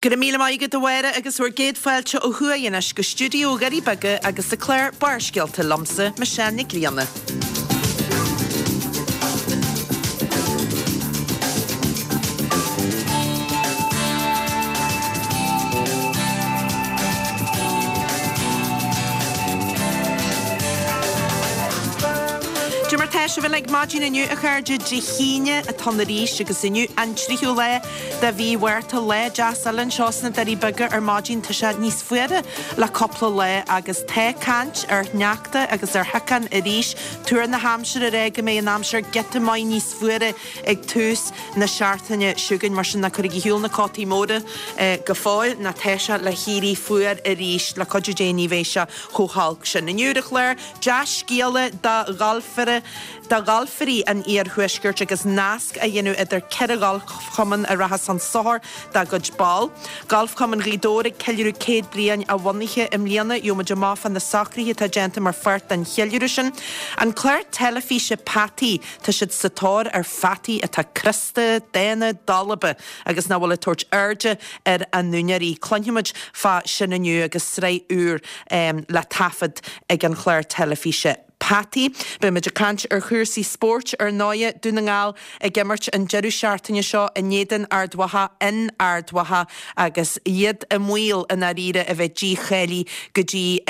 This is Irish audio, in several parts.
Go raibh míle maith agat a Mháire agus bhur gcéad fáilte ó thuaidh anois go stiúideo Dhoirí Beaga agus an clár Barrscéalta liomsa, Michelle Nic Grianna. Cad é mar tá sibh uilig maidin inniu a chairde, Dé hAoine atá ann arís agus inniu an tríú lá de mhí Mhárta, lá deas eile anseo sna Doirí Beaga ar maidin. Tá sé níos fuaire le cúpla lá agus tá caint ar shneachta agus ar shiocán arís. Tuar na haimsire ag rá go mbeidh an aimsir giota maith níos fuaire ag tús na seachtaine seo chugainn. Mar sin ná cuirigí ar shiúl na cótaí móra go fóill nó tá sé le héirí fuar arís. Le cuidiú Dé ní bheidh sé chomh holc sin. Inniu ar an chlár, dea-scéala do ghalfaire. do ghalfairí an iarthuaiscirt agus nasc á dhéanamh idir 4 ghalfchumann a rachas chun sochair dá gcuid ball. Galfchumann Ghaoth Dobhair ag ceiliúradh 100 bliain a bhunaithe i mbliana. Gheobhaimid amach fá na socruithe atá déanta mar pháirt den cheiliúradh sin. An clár teilifíse Peataí, tá siad sa tóir ar pheataí atá crosta, dána, dalba agus nach bhfuil ag tabhairt airde ar a n-úinéirí. Cluinfimid fá sin inniu agus sraith úr le taifead ag an chlár teilifíse. Peataí. Beidh muid ag caint ar chúrsaí spóirt ar ndóighe, Dún na nGall ag imirt an deireadh seachtaine seo in éadan Ard Mhacha in Ard Mhacha agus iad i mbaol i ndáiríre a bheith dícháilithe go dtí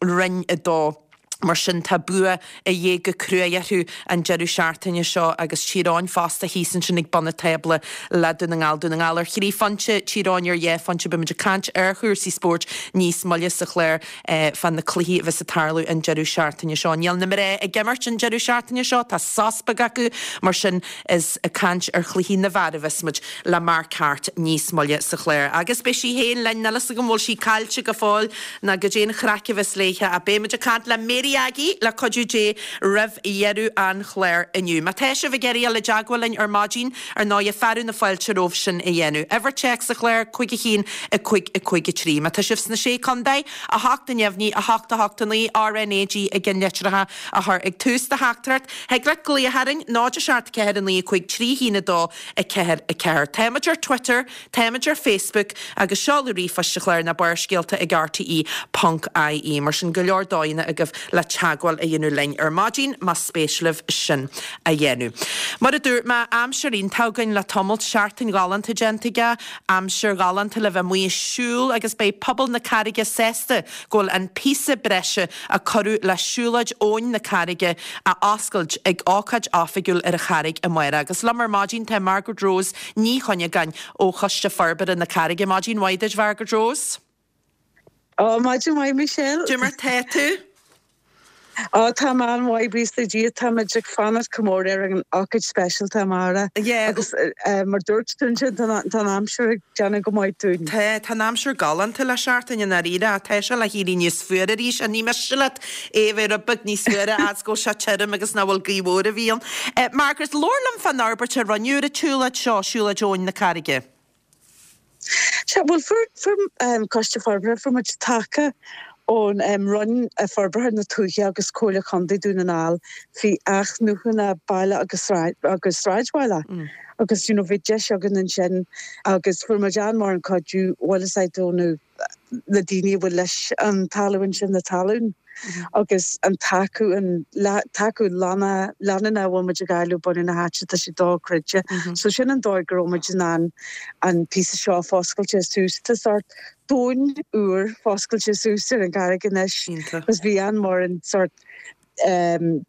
Roinn 2. Mar sin tá bua a dhíth go cruaidh orthu an deireadh seachtaine seo agus Tír Eoghain fosta thíos ansin ag bun an tábla le Dún na nGall. Dún na nGall ar thrí phointe, Tír Eoghain ar dhá phointe. Beidh muid ag caint ar chúrsaí spóirt níos moille sa chlár. fá na cluichí a bheas ag tarlú an deireadh seachtaine seo. Níl na mná ag imirt an deireadh seachtaine seo, tá sos beag acu, mar sin is ag caint ar chluichí na bhfear a bheas muid le Mark Harte níos moille sa chlár. Agus beidh sí féin linn, níl fhios agam an bhfuil sí caillte go fóill ná goidé an chraic a bheas léithe ach beidh muid ag caint le Mary Aggie le cuidiú Dé roimh dheireadh an chláir inniu. Má tá sibh ag iarraidh dul i dteagmháil linn ar maidin, ar ndóighe, fearadh na fáilte romhaibh sin a dhéanamh. Uimhir téacs an chláir, 5 1 5 5 3. Má tá sibh sna Sé Contae, 8 neamhní, 8 8 9, RnaG i gceannlitreacha a chur ag tús do theachtaireacht. Thig leat glaoch orainn, 0 7 4 9 5 3 1 2 4 4. Táimid ar Twitter, Táimid ar Facebook agus seoladh ríomhphoist an chláir ná Barrscéalta ag rte ponc ie. Mar sin, go leor dóigheanna agaibh le teagmháil a dhéanamh linn ar maidin más spéis libh sin a dhéanamh. Mar a dúirt mé, aimsir iontach againn le tamalt, seachtain ghalánta déanta aige, aimsir ghalánta le bheith amuigh ag siúl agus beidh pobal na Carraige sásta go bhfuil an píosa breise a cuireadh le siúlóid Abhainn na Carraige á oscailt ag ócáid oifigiúil ar an Charraig amárach. Agus liom ar maidin tá Margaret Rose Ní Chuinneagáin ó Choiste Forbartha na Carraige. Maidin mhaith duit, Mhargaret Rose. Ó, maidin mhaith, Michelle. Cad é mar tá tú? Ó, tá mé an-mhaith, buíochas le Dia. Táimid ag fanacht go mór ar an ócáid speisialta amárach. Yeah. Agus mar dúirt tú ansin, tá an aimsir ag déanamh go maith dúinn. Tá, tá an aimsir galánta le seachtain i ndáiríre ach tá sé le héirí níos fuaire arís. Ní miste leat é a bheith rud beag níos fuaire as go bhfuil sé tirim agus nach bhfuil gaoth mhór a bhí ann. Margaret, labhair liom fán fhorbairt a rinneadh ar an tsiúlóid seo, Siúlóid Abhainn na Carraige. Sea, bhuel, fuair, fuair Coiste Forbartha, fuair muid taca ón Roinn Forbartha na Tuaithe agus Comhairle Chontae Dún na nGall faoi athnuachan baile agus agus sráidbhaile agus you know bhí deis againn ansin agus fuair muid an-mhór an cuidiú, bhuel is é ó na na daoine a bhfuil leis an talamh ansin, na talún agus an tacú, an tacú leanúnach a bhfuil muid ag fháil ó bunadh na háite, tá sé dochreidte. So sin an dóigh go raibh muid in ann an píosa seo a foscailte suas. Tá sórt domhan úr foscailte suas ar an gCarraig anois agus bhí an-mhór an sórt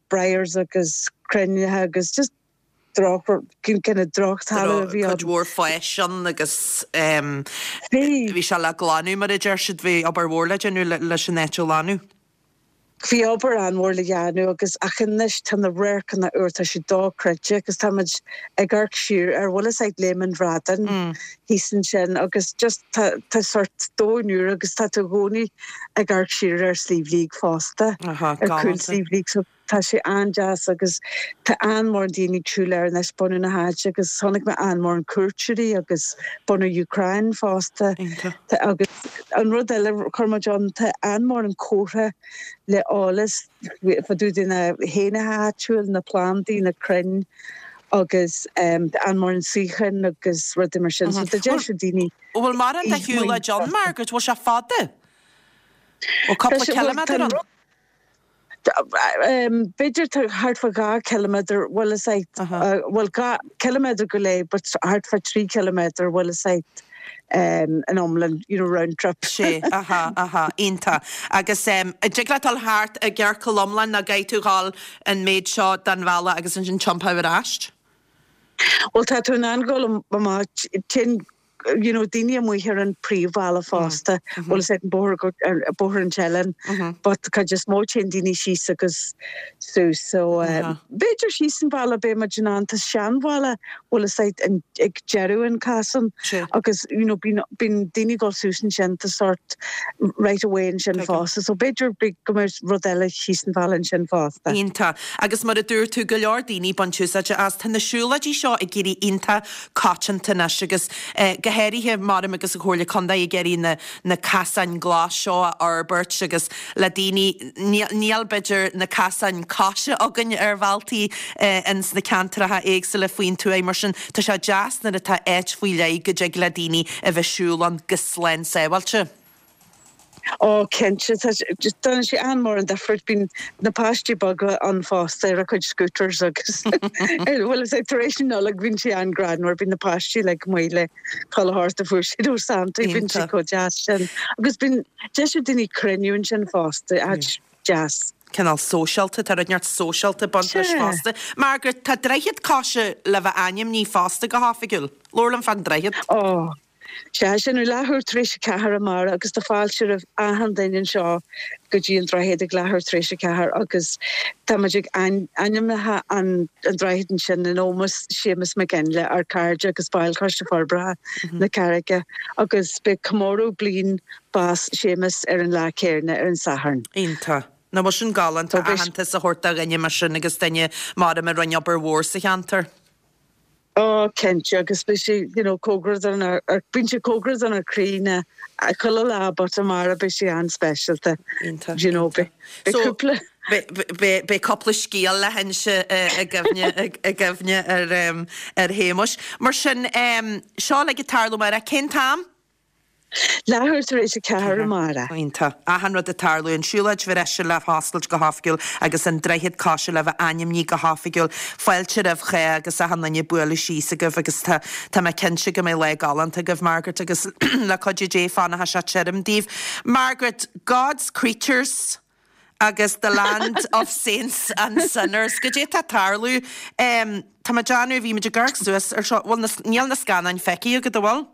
briars agus crainn agus just droch, kind of drochthalamh a bhí ann. Cuid mhór fáis ann agus bhí sé le glanadh mar a deir siad, bhí obair mhór le déanamh leis an áit a ghlanadh. Bhí obair an-mhór le dhéanamh agus ach anois tá na radharcanna úr, tá sé dochreidte agus tá muid ag amharc siar ar bhfuil fhios a'd Léim an Bhradáin thíos ansin agus just tá tá sórt domhan úr agus tá tú i gcónaí ag amharc siar ar Sliabh Liag fosta, ar chúl Sliabh Liag so Tá sé an-deas agus tá an-mhór daoine ag siúl air anois, bunadh na háite agus chonaic mé an-mhór cuairteoirí agus bunadh Ukraine fosta. Iontach. Agus an rud eile a chuir muid ann, tá an-mhór an comhartha le eolas fá dtaobh de na héanacha áitiúil, na plandaí, na crainn. Agus tá an-mhórán suíocháin agus rudaí mar sin so tá deis ag daoine. Bhfuil mórán de shiúlóid ann, Margaret? Bhfuil sé fada? Bhfuil cúpla ciliméadar ann? B'fhéidir tá thart fá 2 chiliméadar, bhfuil fhios a'd, bhuel 2 ciliméadar go leith but thart fá 3 chiliméadar, bhfuil fhios a'd, in iomlán, you know, round trip. Sea, aha, aha, iontach. Agus an dtig leat dul thart i gciorcal iomlán nó caithfidh tú dhul an méid seo den bhealach agus ansin tiompú ar ais? Bhuel tá tú in ann dhul amach, téann you know daoine amuigh ar an príomhbhealach fosta, bhfuil fhios a'd an bóthar go, bóthar an tSiléin, but cuid is mó téann daoine síos agus suas so b'fhéidir síos an bealach beidh muid in ann, tá seanbhealach bhfuil fhios a'd an, ag deireadh an casan agus you know bíonn, bíonn daoine ag dul suas ansin tá sort right of way ansin fosta so b'fhéidir go mbeidh rud eile síos an bhealach ansin fosta. Iontach. Agus mar a dúirt tú, go leor daoine ag baint úsáide as. Tá na siúlóidí seo ag éirí iontach coitianta anois agus go háirithe maram agus an Chomhairle Contae ag iarraidh na na casáin glas seo a fhorbairt agus le daoine, níl b'fhéidir na casáin coise againn ar bhealtaí ins na ceantracha éagsúla faoin tuaith mar sin tá sé deas nuair atá áit faoi leith go dtig le daoine a bheith siúl ann go slán sábháilte. Ó, cinnte, tá sé, déanann sé an-mhór an difríocht. Bíonn na páistí beaga ann fosta ar a gcuid scooters agus bhfuil fhios a'd tar éis na Nollag bíonn sé an-greannmhar, bíonn na páistí like amuigh le chuile shórt a fuair siad ó Santa, bíonn sé chomh deas sin. Agus bíonn deis ag daoine cruinniú ansin fosta, áit deas. Cineál sóisialta, tá rud inteacht sóisialta ag baint leis fosta. Margaret, tá droichead coise le bheith ainmnithe fosta go hoifigiúil. Labhair liom fán droichead. Ó. Sea, sin ar leathuair tar éis a ceathair amárach agus tá fáilte roimh achan duine anseo go dtí an droichead ag leathuair tar éis a ceathair agus tá muid ag ainmnithe an droichead ansin in ómós Séamus Mac Fhionnghaile, ár cairde agus baill Choiste Forbartha na Carraige agus beidh comóradh bliain bás Séamus ar an lá céarna, ar an Satharn. Iontach. Nach bhfuil sin galánta aitheantas a thabhairt do dhuine mar sin agus duine maram a rinne obair mhór sa cheantar. Ó, cinnte, agus beidh sé, you know, cóngarach don, bíonn sé cóngarach don chroí na, chuile lá but amárach beidh sé an-speisialta. Iontach, You know, beidh, beidh So, cúpla. beidh, beidh cúpla scéal le hinse i gcuimhne, i gcuimhne ar, ar Shéamuis. Mar sin, seo uilig ag tarlú amárach, cén t-am? Leathuair tar éis a ceathair amárach. Iontach. Achan rud ag tarlú, an siúlóid bhreise le hoscailt go hoifigiúil agus an droichead coise le bheith ainmnithe go hoifigiúil. Fáilte roimh chách agus achan duine bualadh síos agaibh agus tá tá mé cinnte go mbeidh lá galánta agaibh Margaret agus le cuidiú Dé fanfaidh sé tirim daoibh. Margaret, God's creatures agus the land of saints and sinners. Goidé atá ag tarlú? Tá mé ag déanamh, bhí muid ag amharc suas ar seo, bhfuil na, níl na scannáin feicthe agat, an bhfuil?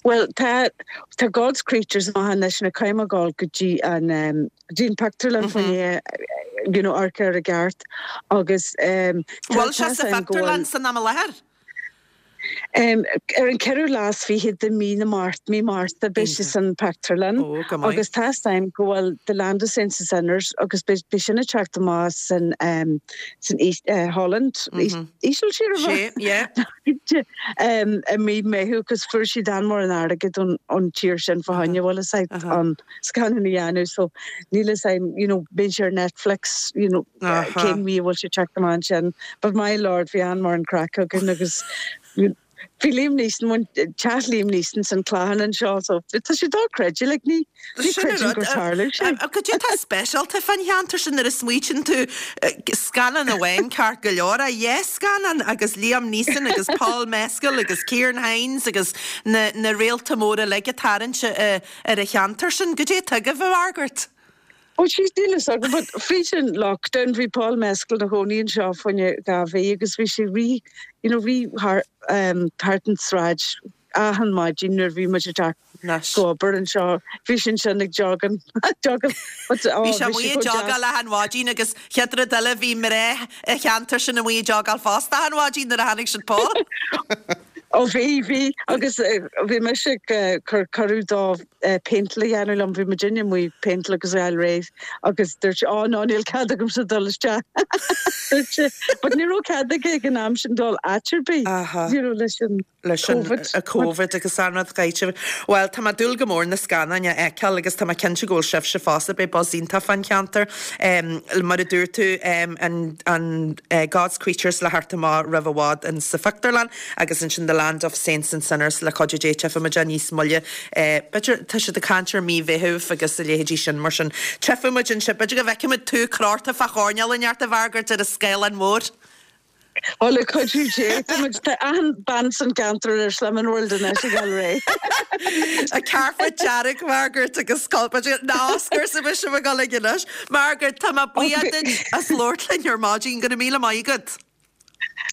Bhuel, tá, tá God's Creatures amach anois nó caithfidh mé dhul go dtí an, go dtí an pictiúrlann fá choinne, you know, amharc air i gceart agus tá, Bhfuil sé sa phictiúrlann san am i láthair? Ar an ceathrú lá is fiche de mí na Márta, mí Márta, beidh sé san pictiúrlann Ó, go maith. agus tá 'fhios a'm go bhfuil The Land of Saints and Sinners agus beidh, beidh sin ag teacht amach san, san Holland, Ísiltír, Sea, yeah. I mí Meitheamh agus fuair siad an-mhór an airgead ón tír sin fá choinne bhfuil fhios a'd an scannán a dhéanamh so níl fhios a'm you know bíonn sé ar Netflix you know cén mhí a bhfuil sé teacht amach ansin but my lord bhí an-mhór an craic againn agus bhí Liam Neeson teach Liam Neeson san Clachan anseo so tá sé dochreidte like ní Ní Sin an chreidim rud. gur tharla sé. Cad é atá speisialta fán cheantar sin nuair a smaoitíonn tú, scannán amháin ceart go leor, ach dhá scannán agus Liam Neeson agus Paul Mescal agus Ciarán Hinds agus na na réalta móra uilig ag tarraingt ar an cheantar sin. Cad é atá agaibh, a Mhargaret? Ó jeez níl fhios agam but fríd an lockdown bhí Paul Mescal ina chónaí anseo fá choinne dhá mhí agus bhí sé rith you know rith thar thart an tsráid achan maidin nuair a bhí muid ag teacht go obair anseo, bhí sé ansin ag jogging, jogging, but oh bhí sé amuigh ag jogáil achan mhaidin agus chéad rud eile bhí mná an cheantair sin amuigh ag jogáil fosta achan mhaidin nuair a chonaic siad Paul. Ó bhí, bhí, agus bhí mise ag cur cuireadh dó péinteáil a dhéanamh liom, bhí muidinne amuigh ag péinteáil agus a fháil réidh agus dúirt sé, Ó no, níl cead agamsa dul isteach, dúirt sé. But ní raibh cead aige ag an am sin dul áit ar bith, you know, leis an leis an Covid agus an rud gaibhte. Bhuel, tá mé ag dúil go mór na scannáin a fheiceáil agus tá mé cinnte go bhfuil sibhse fosta, beidh buzz iontach fán cheantar. Mar a dúirt tú, an God's Creatures le theacht amach roimh i bhfad in sa phictiúrlann agus ansin The Land of Saints and Sinners le cuidiú Dé tchífidh muid é níos moille. B'fhéidir, tá siad ag caint ar mí Mheithimh agus a leithéidí sin mar sin tchífidh muid ansin, b'fhéidir go bhfeicfidh muid tú crochta fá choirnéal inteacht a Mhargaret ar an scáileán mór. Ó le cuidiú Dé, tá muid, tá achan bean san gceantar ar Slimming World anois ag dul réidh. An carpet dearg, Margaret, agus b'fhéidir na Oscars a bheidh sibh ag dul ag anois. Margaret, tá mé buíoch duit as labhairt linn ar maidin, go raibh míle maith agat.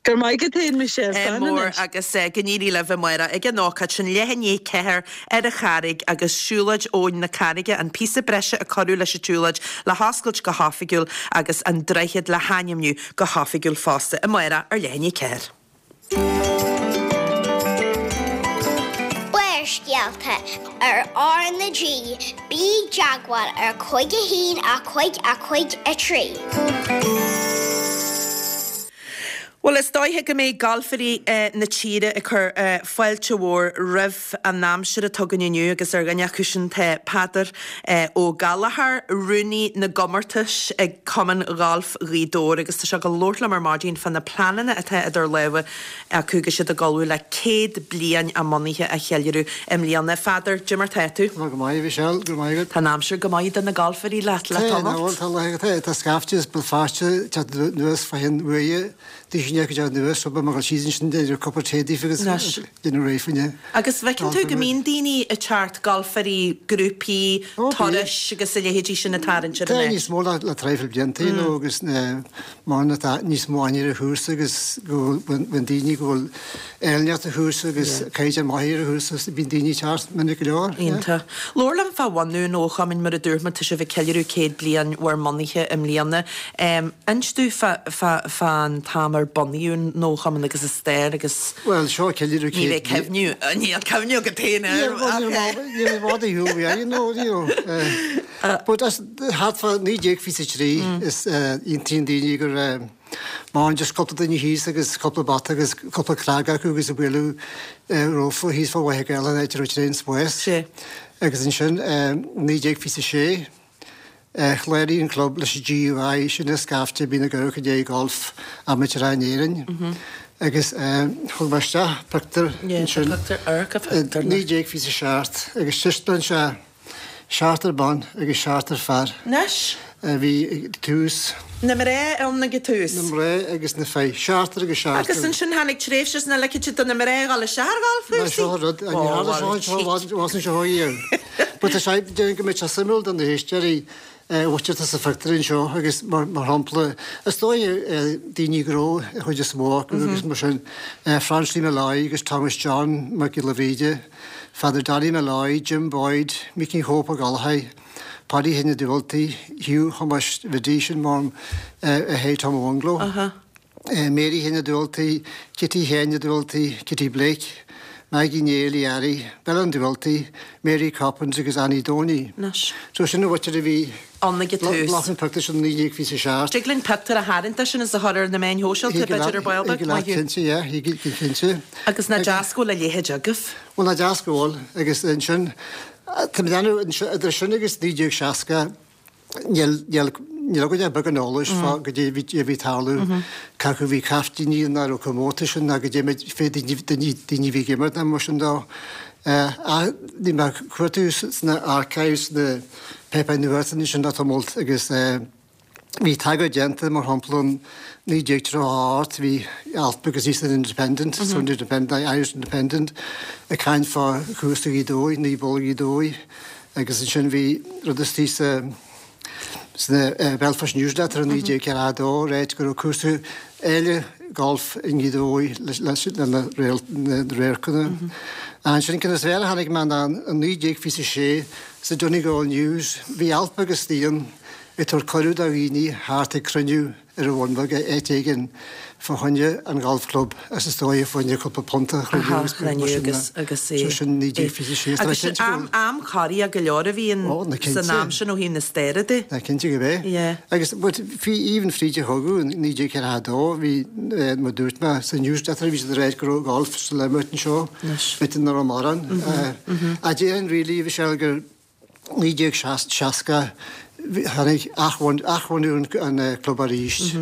Go raibh maith agat féin, Michelle. Slán mór anois. agus go n-éirí libh amárach ag an ócáid sin, leath i ndiaidh 4 ar an Charraig agus Siúlóid Abhainn na Carraige, an píosa breise a cuireadh leis an tsiúlóid le hoscailt go hoifigiúil agus an droichead le hainmniú go hoifigiúil fosta amárach ar leath i ndiaidh 4. Barrscéalta ar R na G, bí i dteagmháil ar 5 1 5 5 3. Bhuel, is dóiche go mbeidh galfairí na tíre ag cur fáilte mhór roimh an aimsir atá againn inniu agus ar dhuine acu sin tá Peadar Ó Gallchóir, Rúnaí na gComórtas ag Cumann Ghailf Ghaoth Dobhair agus tá sé ag dul labhairt liom ar maidin fá na pleananna atá idir lámha acu agus iad ag ullmhú le 100 bliain a mbunaithe a cheiliúradh i mbliana. A Pheadair, cad é mar tá tú? Tá go maith, a Mhichelle, go raibh maith agat. Tá an aimsir go maith do na galfairí leat le tamall. Tá, tá, tá, tá scaifte as Béal Feirste ag teacht anuas fá cheann uaighe, daoine ag teacht anuas, so beidh mé ag dul síos ansin déanamh cupla tae daofa agus déanamh réidh fá choinne. Agus bhfeiceann tú go mbíonn daoine ag teacht, galfairí, grúpaí, turais agus a leithéidí sin ag tarraingt ar an áit. Tá níos mó le traidhfil blianta, you know, agus mar tá níos mó aithne ar an chúrsa agus go bhfuil daoine go bhfuil áilneacht an chúrsa agus caighdeán maith ar an chúrsa bíonn daoine ag teacht minic go leor. Iontach. Labhair liom fá bhunú an Chumainn mar a dúirt mé tá sibh ag ceiliúradh 100 bliain bhur mbunaithe i mbliana. Inis domh fán t-am ar bunaíodh an Chumann agus a stair agus Bhuel seo ceiliúradh 100 ní bheidh cuimhniú, níl cuimhniú agat féin air ach. Níl mé i bhfad ar shiúl uaidh, you know, you know. But as thart fá 1923 is aontaíonn daoine gur maireann just cúpla duine thíos agus cúpla bata agus cúpla cnag acu agus ag bualadh rófa thíos fá Mhachaire Gathlán áit a raibh an spás. Agus ansin 1926 chláraigh an club leis an GUI, sin an scaifte a bhíonn ag amharc i ndiaidh golf amaitéarach in Éirinn. Agus thug mé isteach pictiúr ansin i 1927 agus taispeánann sé Seachtar ban agus seachtar fear. Anois. A bhí ag tús. Na mná ann ag an tús. Na mná agus na fir. Seachtar agus seachtar. Agus ansin tháinig tréimhse sna ligfidh siad do na mná a dhul isteach ar ghalfchúrsaí. Seo an rud. Ní tharla seo anseo i bhfad ó seo riamh. But tá sé, déarfainn go mbeidh sé suimiúil do na héisteoirí a mhuintir atá sa phictiúr anseo agus mar shampla, is dóigh daoine gnó an chuid is mó acu agus mar sin, Francie Molloy agus Thomas John Mac Giolla Bhríde, Father Danny Molloy, Jim Boyd, Micí Chóip Ó Gallchóir, Paddy Sheáin Uí Dubhaltaigh, Hugh Thomáis Bhiddy, sin mam Shay Tom ó Bhungalow, Mary Sheáin Uí Dubhaltaigh, Kitty Sheáin Uí Dubhaltaigh, Kitty Blake, Maggie Néill Uí Fhearraigh, Bella an Dubhaltaigh, Mary Coppins agus Annie Donie. So sin an mhuintir a bhí ann ag an tús. Ghlac an pictiúr sin 1927. Dtig linn pictiúr a tharraingt de sin is a chur ar na meáin shóisialta, b'fhéidir, ar ball beag. Thig leat cinnte, yeah, thig cinnte. Agus nach deas go bhfuil a leithéid agaibh. Bhuel, nach deas go bhfuil, agus ansin, tá mé ag déanamh, idir sin agus 1960, níl, níl, níl againn ach beagán eolais fá goidé a bhí, a bhí ag tarlú, cé acu a bhí caiftíní ná raibh comórtais ann ná goidé fé daoine, daoine, daoine a bhí ag imirt ná mar sin dó. Ach bhí mé ag cuartú sna archives, sna páipéir nuachta ansin le tamall agus bhí tagairt déanta, mar shampla, in 1938 bhí alt beag thíos san Independent, Sunday Independent, Irish Independent, ag caint fá chúrsa Ghaoth Dobhair, Naomh Bolg Ghaoth Dobhair agus ansin bhí rud istigh sa sna Belfast Newsletter in 1942 ag ráit go raibh cúrsa eile golf i nGaoth Dobhair leis na radharcanna. Ansin ceann is fearr a chonaic mé ná in 1926 sa Donegal News bhí alt beag istigh ann ag tabhairt cuireadh do dhaoine theacht ag cruinniú. ar an Bhun Bheag áit éigin fá choinne an Gholf Club is is dóigh fá choinne cúpla punt a chruinniú agus Aha, mar chruinniú sin agus de. agus So é sin é. 1926. Tá mé Agus cinnte go am bhfuil. am corraithe go leor a bhí in Ó, na san cinnte. am sin ó thaobh na staire de. Na cinnte gurb é. Yeah. Agus but bhí even fríd an chogadh in 1942 bhí eh, mar dúirt mé sa newsletter bhí siad ag ráit go raibh golf sa imirt anseo. Anois. B'fhéidir nach raibh mórán. Eh, ach déarfainn really Michelle gur 1960 tháinig athbhunú an club arís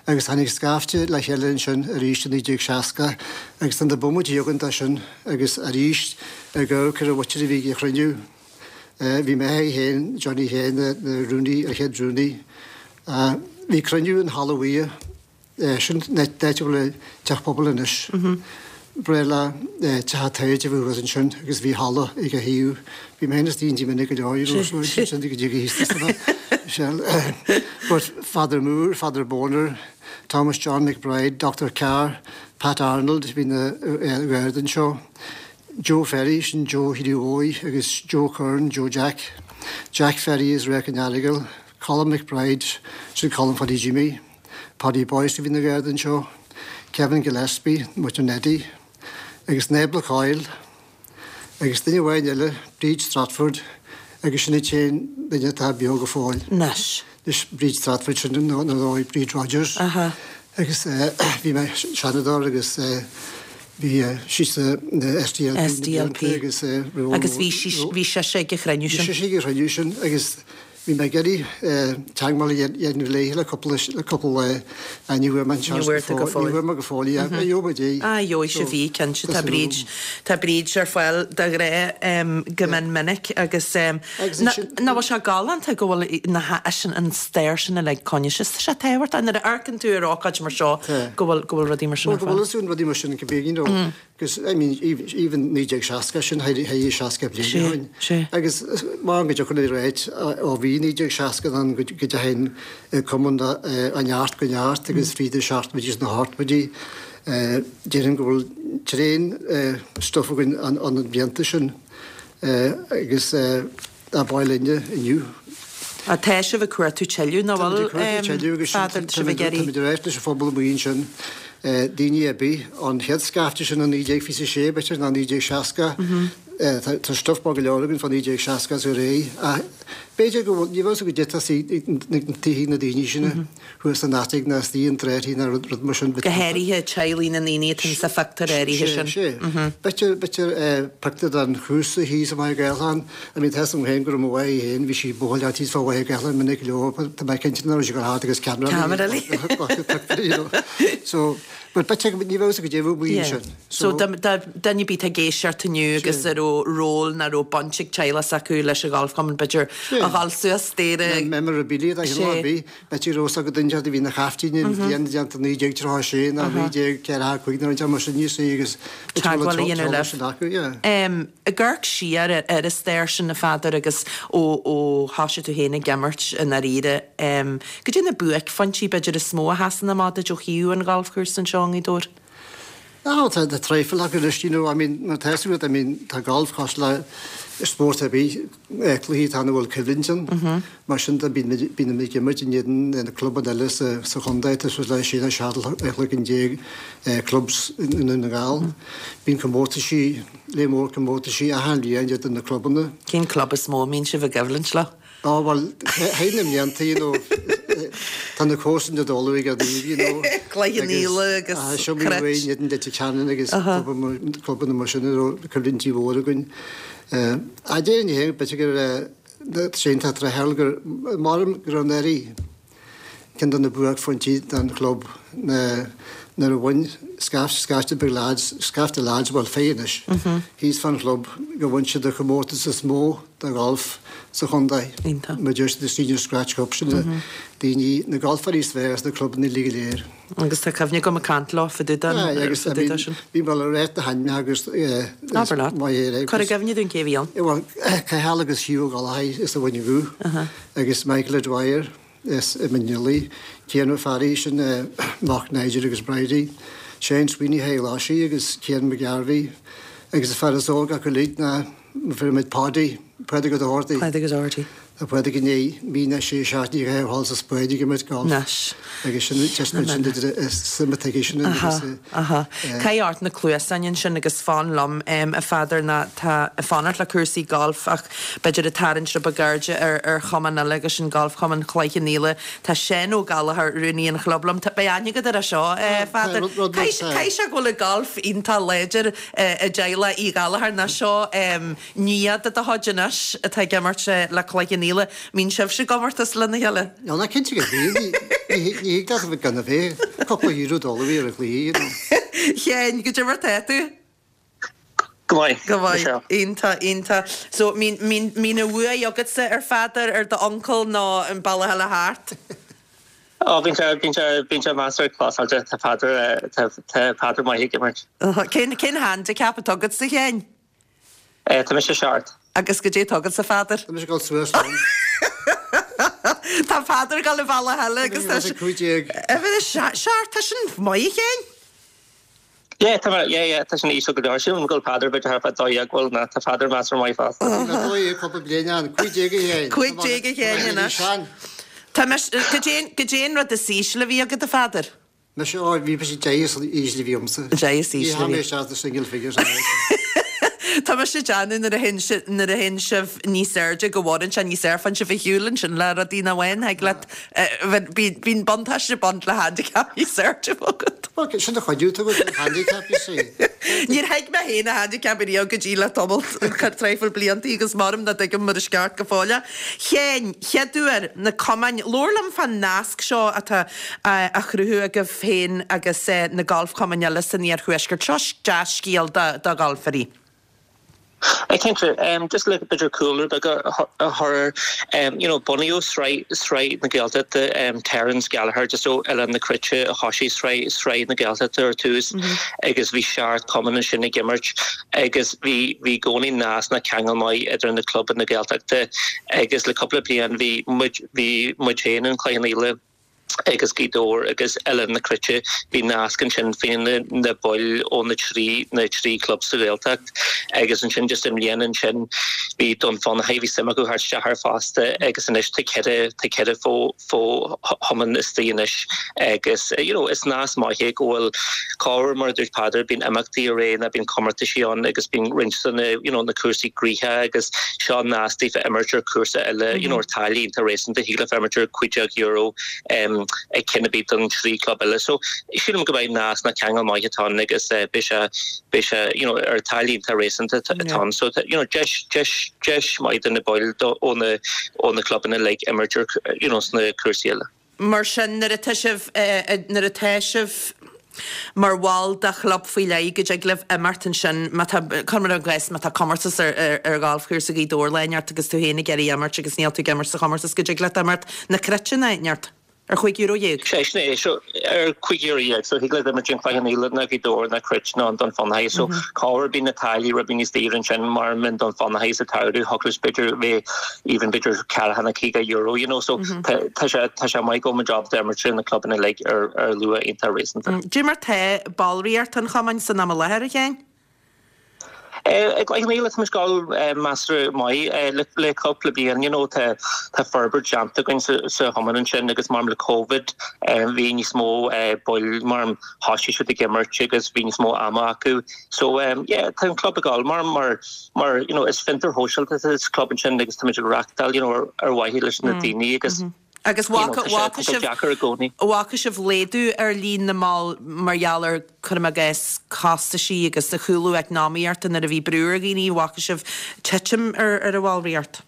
agus tháinig scaifte le chéile ansin arís i 1960 agus tá na bomaití againn de sin agus arís ag amharc ar an mhuintir a bhí ag an chruinniú. Bhí mé féin, Johnny féin, na rúnaí, an chéad rúnaí. Bhí cruinniú in Halla Bhuí. Sin an áit a bhfuil an teach pobail anois. Breá le teach an taighde a bhí thuas ansin agus bhí halla ag a thaobh. Bhí mé féin istigh inti minic go leor, you know, so sin go dtí go thíos But Father Moore, Father Boner, Thomas John McBride, Dr Carr, Pat Arnold, bhí na Gardaí anseo. Joe Ferry, sin Joe Hugh Óigh agus Joe Curran, Joe Jack, Jack Ferry as Ráth an Earagail, Colm McBride, sin Colm Pháidí Jimmy. Paddy Boyce a bhí ina gharda anseo, Kevin Gillespie, muintir Neddy, agus Nebla Coyle, agus duine amháin eile, Bríd Stratford, agus sin an t-aon duine atá beo go fóill. Anois. Anois, Bríd Stratford, sin ar ndóigh Bríd Rodgers. Aha. Agus bhí mé seanadóir agus bhí sí sa SDLP na SDLP. agus Agus bhí sí, bhí sise ag an chruinniú Bhí sin. sise ag an chruinniú sin agus Bhí mé ag iarraidh teagmháil a dhéanamh léi le cúpla le cúpla lá ach ní bhfuair mé an Ní seans bhfuair tú go go fóill. Ní fóill. bhfuair mé go fóill í ach gheobhaidh muid í. Ah, gheobhaidh So, sibh í, cinnte. tá Tá súil Bríd, agam. tá Bríd ar fáil de ghnáth go mion minic agus Agus nach ansin, bhfuil sé galánta go bhfuil na ha, sin an stair sin uilig coinnithe. Tá sé tábhachtach nuair a amharcann tú ar ócáid mar seo Tá. go bhfuil, go bhfuil rudaí mar sin Bhuel, ar go fáil. bhfuil fhios againn rudaí mar sin go bíonn, you know. Agus, I mean, even 1960, sin thar 60 bliain ó shin. Agus mar go dtiocfainn ar áit ó bhí 1960 ann go dteachaigh an cumann ó neart go neart agus fríd na seachtóidí is na hochtóidí, déarfainn go bhfuil tréan stuif againn ó na blianta sin agus ab áil linne inniu. Á, tá sibh ag cuartú tuilleadh, nach Táimid bhfuil, ag cuartú tuilleadh agus Pheadair, tá sibh ag iarraidh. Táimid ag ráit leis an phobal amuigh ansin, daoine ar bith, ón chéad scaifte sin i 1926, b'fhéidir, nó 1960, tá stuif maith go leor againn fá 1960 is ar aghaidh, ach b'fhéidir go bhfuil, ní bheadh a fhios agat goidé atá sna tithe na daoine sin. thuas san attic ná istigh i dtráthaí ná rud mar sin. Go háirithe teaghlaigh na ndaoine atá sa phictiúr áirithe sin. Sé, sé. B'fhéidir, b'fhéidir pictiúr den chúrsa thíos i Machaire Gathlán. I mean, tá fhios agam féin go raibh mo mháthair féin, bhí sí ag buachailleacht thíos fá Mhachaire Gathlán minic go leor, tá mé cinnte nach raibh sí ag dul thart agus ceamara Ceamara léi. Pictiúr, you know. So, but b'fhéidir, ní bheadh fhios agat goidé a bheadh amuigh Yeah. ansin. So, dá, dá, duine ar bith atá ag éisteacht inniu agus a raibh ról ná raibh baint ag teaghlach s'acu leis an ghalfchumann, b'fhéidir a dhul suas staighre. Memorabilia, dá chineál ar bith. B'fhéidir go raibh fhios ag duine a bhí ina chaiftín an bhliain déanta 1936 nó 1945 nó rud mar sin you see agus Teagmháil a dhéanamh libh. Ag amharc siar ar an stair sin a Pheadair agus ó ó thoisigh tú féin ag imirt i ndáiríre, goidé na buaicphointí b'fhéidir is mó a sheasann amach duit ó thaobh an ghalfchúrsa anseo i nGaoth Dobhair? Ah tá tá traidhfil acu anois, you know, I mean mar tá fhios agat, I mean tá galf cosúil le spórt ar bith, cluichí atá ann a bhfuil coimhlint ann. Mar sin de bíonn muid bíonn muid ag imirt in éadan na clubanna eile sa sa chontae, tá suas le sé nó seacht chloigeann déag clubs i nDún na nGall. Bíonn comórtaisí, léar mór comórtaisí achan bhliain idir na clubanna. Cén club is mó a mbíonn sibh i gcoimhlint leo? Á bhuel, thar na mblianta, you know, tá na comharsana ag dul ag daoine, you know. Cloich Cheann Fhaola agus Seo mé Cruit. in éadan Leitir Ceanainn agus clubanna mar sin a raibh coimhlintí mhóra againn. Ach déarfainn féin, b'fhéidir gur sé an tráth gur maram go raibh anuraidh Ceann de na buaicphointí don chlub ná nuair a bhain scaifte beag lads, scaifte lads, bhuel fir anois, thíos fán chlub go bhain siad an chomórtas is mó de gholf sa chontae. Iontach. Mar deir siad the Senior Scratch Cup, sin na daoine, na golfairí is fearr sna clubanna uilig go léir. Agus tá cuimhne agam ag caint leo fá dtaobh den, Aye, agus fá I dtaobh de mean, sin. bhí mé le ráit na hainmneacha agus Abair leat. maith é. Cuir i gcuimhne dúinn cé a bhí ann. Bhuel, Cathal agus Hugh Ó Gallchóir as an Mhuileann gCú agus Michael O'Dwyer, as an Mionlaigh, Cian Ó Fearraigh, sin mac Nigel agus Bridie, Shane Sweeney Thigh Ghlaisigh agus Cian McGarvey agus an fear is óige acu uilig ná fuair muid Paddy, Pádraig Ó Dochartaigh. Pádraig Ó Dochartaigh. Tá Pádraig i ndiaidh mí ná sé seachtaine a dhul sa Spáinn ag imirt golf. Anois. Agus sin just an sin idir suim atá aige sin agus. Aha, aha. Caith ort na cluasáin ansin agus fan liom, a Pheadair, ná tá ag fanacht le cúrsaí golf ach b'fhéidir ag tarraingt rud beag airde ar ar chumann eile agus sin Galfchumann Chloich Cheann Fhaola. Tá Seán Ó Gallchóir, rúnaí an chlub liom. Tá, beidh aithne agat air seo, a Pheadair. Caithfidh sé go bhfuil an golf iontach láidir i dteaghlach Uí Ghallchóir ná seo nia de do chuid anois atá ag imirt le Cloich Cheann Fhaola. Mbíonn sibhse i gcomórtas lena chéile? Nó ná cinnte go mbíonn. Ní thig leat a bheith gan a bheith. Cúpla euro dul a bhí ar an gcluiche, you know. Sheáin, goidé mar tá tú? Go maith. Go maith. Iontach, iontach. So, mbíonn, mbíonn, mbíonn an bhuaidh agatsa ar Pheadar, ar d'uncail nó an bealach eile thart? Ó, bíonn sé, bíonn sé, bíonn sé measartha closáilte. Tá Peadar, tá, tá Peadar maith ag imirt. Cén, cén handicap atá agatsa, a Sheáin? Tá mise seacht. Agus goidé atá agatsa, a Pheadair? Tá mise ag dul suas liom. Tá Peadar ag dul an bealach eile agus tá sé. 15. Seacht, tá sin maith, a Sheáin. Yeah, tá mé, yeah, yeah, tá sin íseal go leor. Sílim go bhfuil Peadar b'fhéidir thart fá 12, bhfuil, ná tá Peadar measartha maith fosta. Bhí mé 12 cúpla bliain ann, 15 a Sheáin. 15 a Sheáin anois. Tá mise, goidé, goidé an rud is ísle a bhí agat a Pheadair? Mise, ó, bhí mise 10 is ísle a bhí agamsa. 10 is Ní ísle a tháinig bhí. mé isteach sna single figures an uair sin. Tá mise ag déanamh nuair a théann si, nuair a théann sibh níos airde go bhfoireann sé níos air, faigheann sibh ar shiúl ansin le rudaí nach bhfaigheann, thig leat, Bíonn buntáiste ag baint le handicap níos airde agat. Bhuel, sin do chuidiú tú an handicap, you see. Níor thuig mé féin an handicap ariamh go dtí le tamall traidhfil blianta agus maram nach dtuigim mar is ceart go fóill é. Sheáin, chéad uair, na cumainn, labhair liom fán nasc seo atá á chruthú agaibh féin agus na galfchumainn eile san iarthuaisceart. Seo dea-scéal do ghalfairí. Cinnte, just le b'fhéidir cúlra beag a chur air, you know, bunaíodh Sraith, Sraith na Gaeltachta, Terence Gallagher just ó Oileán na Cruite a thosaigh Sraith, Sraith na Gaeltachta ar tús agus bhí seacht cumann ansin ag imirt agus bhí, bhí i gcónaí nasc ná ceangal maith idir na clubanna Gaeltachta agus le cúpla bliain bhí muid, bhí muid féin in Cloich Cheann Fhaola, agus Gaoth Dobhair agus Oileán na Cruite, bhí nasc ansin faoi na baill ó na trí na trí club sa Ghaeltacht agus ansin just i mbliana ansin bhí Dún Fionnachaidh, bhí suim acu theacht isteach air fosta agus anois tá ceithre tá ceithre fo fo chumann istigh anois agus you know is nasc maith é go bhfuil corruair mar a dúirt Peadar bíonn imeachtaí ar aghaidh nó bíonn comórtaisí ann agus bíonn roinnt de na you know na cúrsaí gnoitheach agus seo nasc daofa imirt ar cúrsa eile you know ar táille iontach réasúnta thig leofa imirt ar €15 ag ceann ar bith den trí club eile. So sílim go mbeidh nasc ná ceangal maith atá ann agus beidh sé beidh sé you know ar táille iontach réasúnta atá ann. So you know deis deis deis maith do na baill ó na ó na clubanna uilig imirt ar you know sna cúrsaí eile. Mar sin, nuair atá sibh, nuair atá sibh mar bhall de chlub faoi leith, go dtig libh imeacht ansin, má tá, cuir i gcás, má tá comórtas ar, ar ghalfchúrsa Ghaoth Dobhair lá inteacht agus tú féin ag iarraidh imirt agus níl tú ag imirt sa chomórtas, go dtig leat imirt na Cruite nó áit inteacht ar €15. Sé sin é, so ar €15, so thig leat imirt in Cloich Cheann Fhaola ná Gaoth Dobhair ná Cruit ná an Dún Fionnachaidh, so corruair bíonn na táillí rud beag níos daoire ansin mar in Dún Fionnachaidh sa tsamhradh, thiocfadh leis b'fhéidir bheith even b'fhéidir ceathracha nó €50 you know so tá tá sé tá sé maith go bhfuil muid ábalta imirt ar na clubanna uilig ar ar luach iontach réasúnta. Cad é mar tá ballraíocht an chumainn san am i láthair, a Sheáin? I gCloich Cheann Fhaola tá muid ag dul measartha maith le le cúpla bliain you know tá tá forbairt déanta againn sa sa chumann ansin agus mar le Covid bhí níos mó baill mar thosaigh siad ag imirt agus bhí níos mó ama acu so yeah tá an club ag dul mar mar Mar, you know, is fiontar shóisialta atá sa club ansin agus táimid ag reachtáil, you know, ar, ar mhaithe leis na daoine agus, Agus you know, bhfaca, tá sé, bhfaca tá sé sibh, deacair i gcónaí. bhfaca sibh laghdú ar líon na mball mar gheall ar, cuirim i gcás, costaisí agus an chúlú eacnamaíochta nuair a bhí brú ar dhaoine, bhfaca sibh titim ar, ar an bhallraíocht?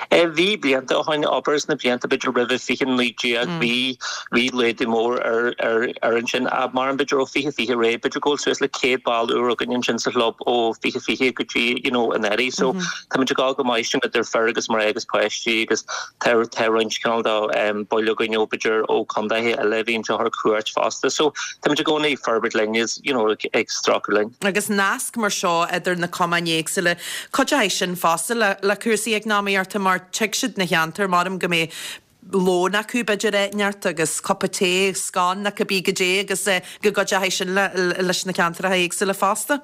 Bhí blianta ó shin, abair sna blianta b'fhéidir roimhe 2019, bhí, bhí laghdú mór ar, ar, ar ansin. Mar b'fhéidir ó 2020 ar aghaidh, b'fhéidir go bhfuil suas le 100 ball úr againn ansin sa chlub ó 2020 go dtí, you know, anuraidh. So táimid ag dul go maith sin idir fir agus mná agus páistí agus tá, tá roinnt cineál de baill againn ó b'fhéidir ó contaetha eile a bhíonn anseo ar cuairt fosta. So táimid i gcónaí ag forbairt linn is, you know, ag, ag stracadh linn. Agus nasc mar seo idir na cumainn éagsúla, Cuideoidh sin fosta le cúrsaí eacnamaíochta mar tig siad 'na cheantar, maram go mbeidh lón acu b'fhéidir áit inteacht agus cupa tae, scone nó cibé goidé agus go gcuideoidh sin leis na ceantracha éagsúla fosta.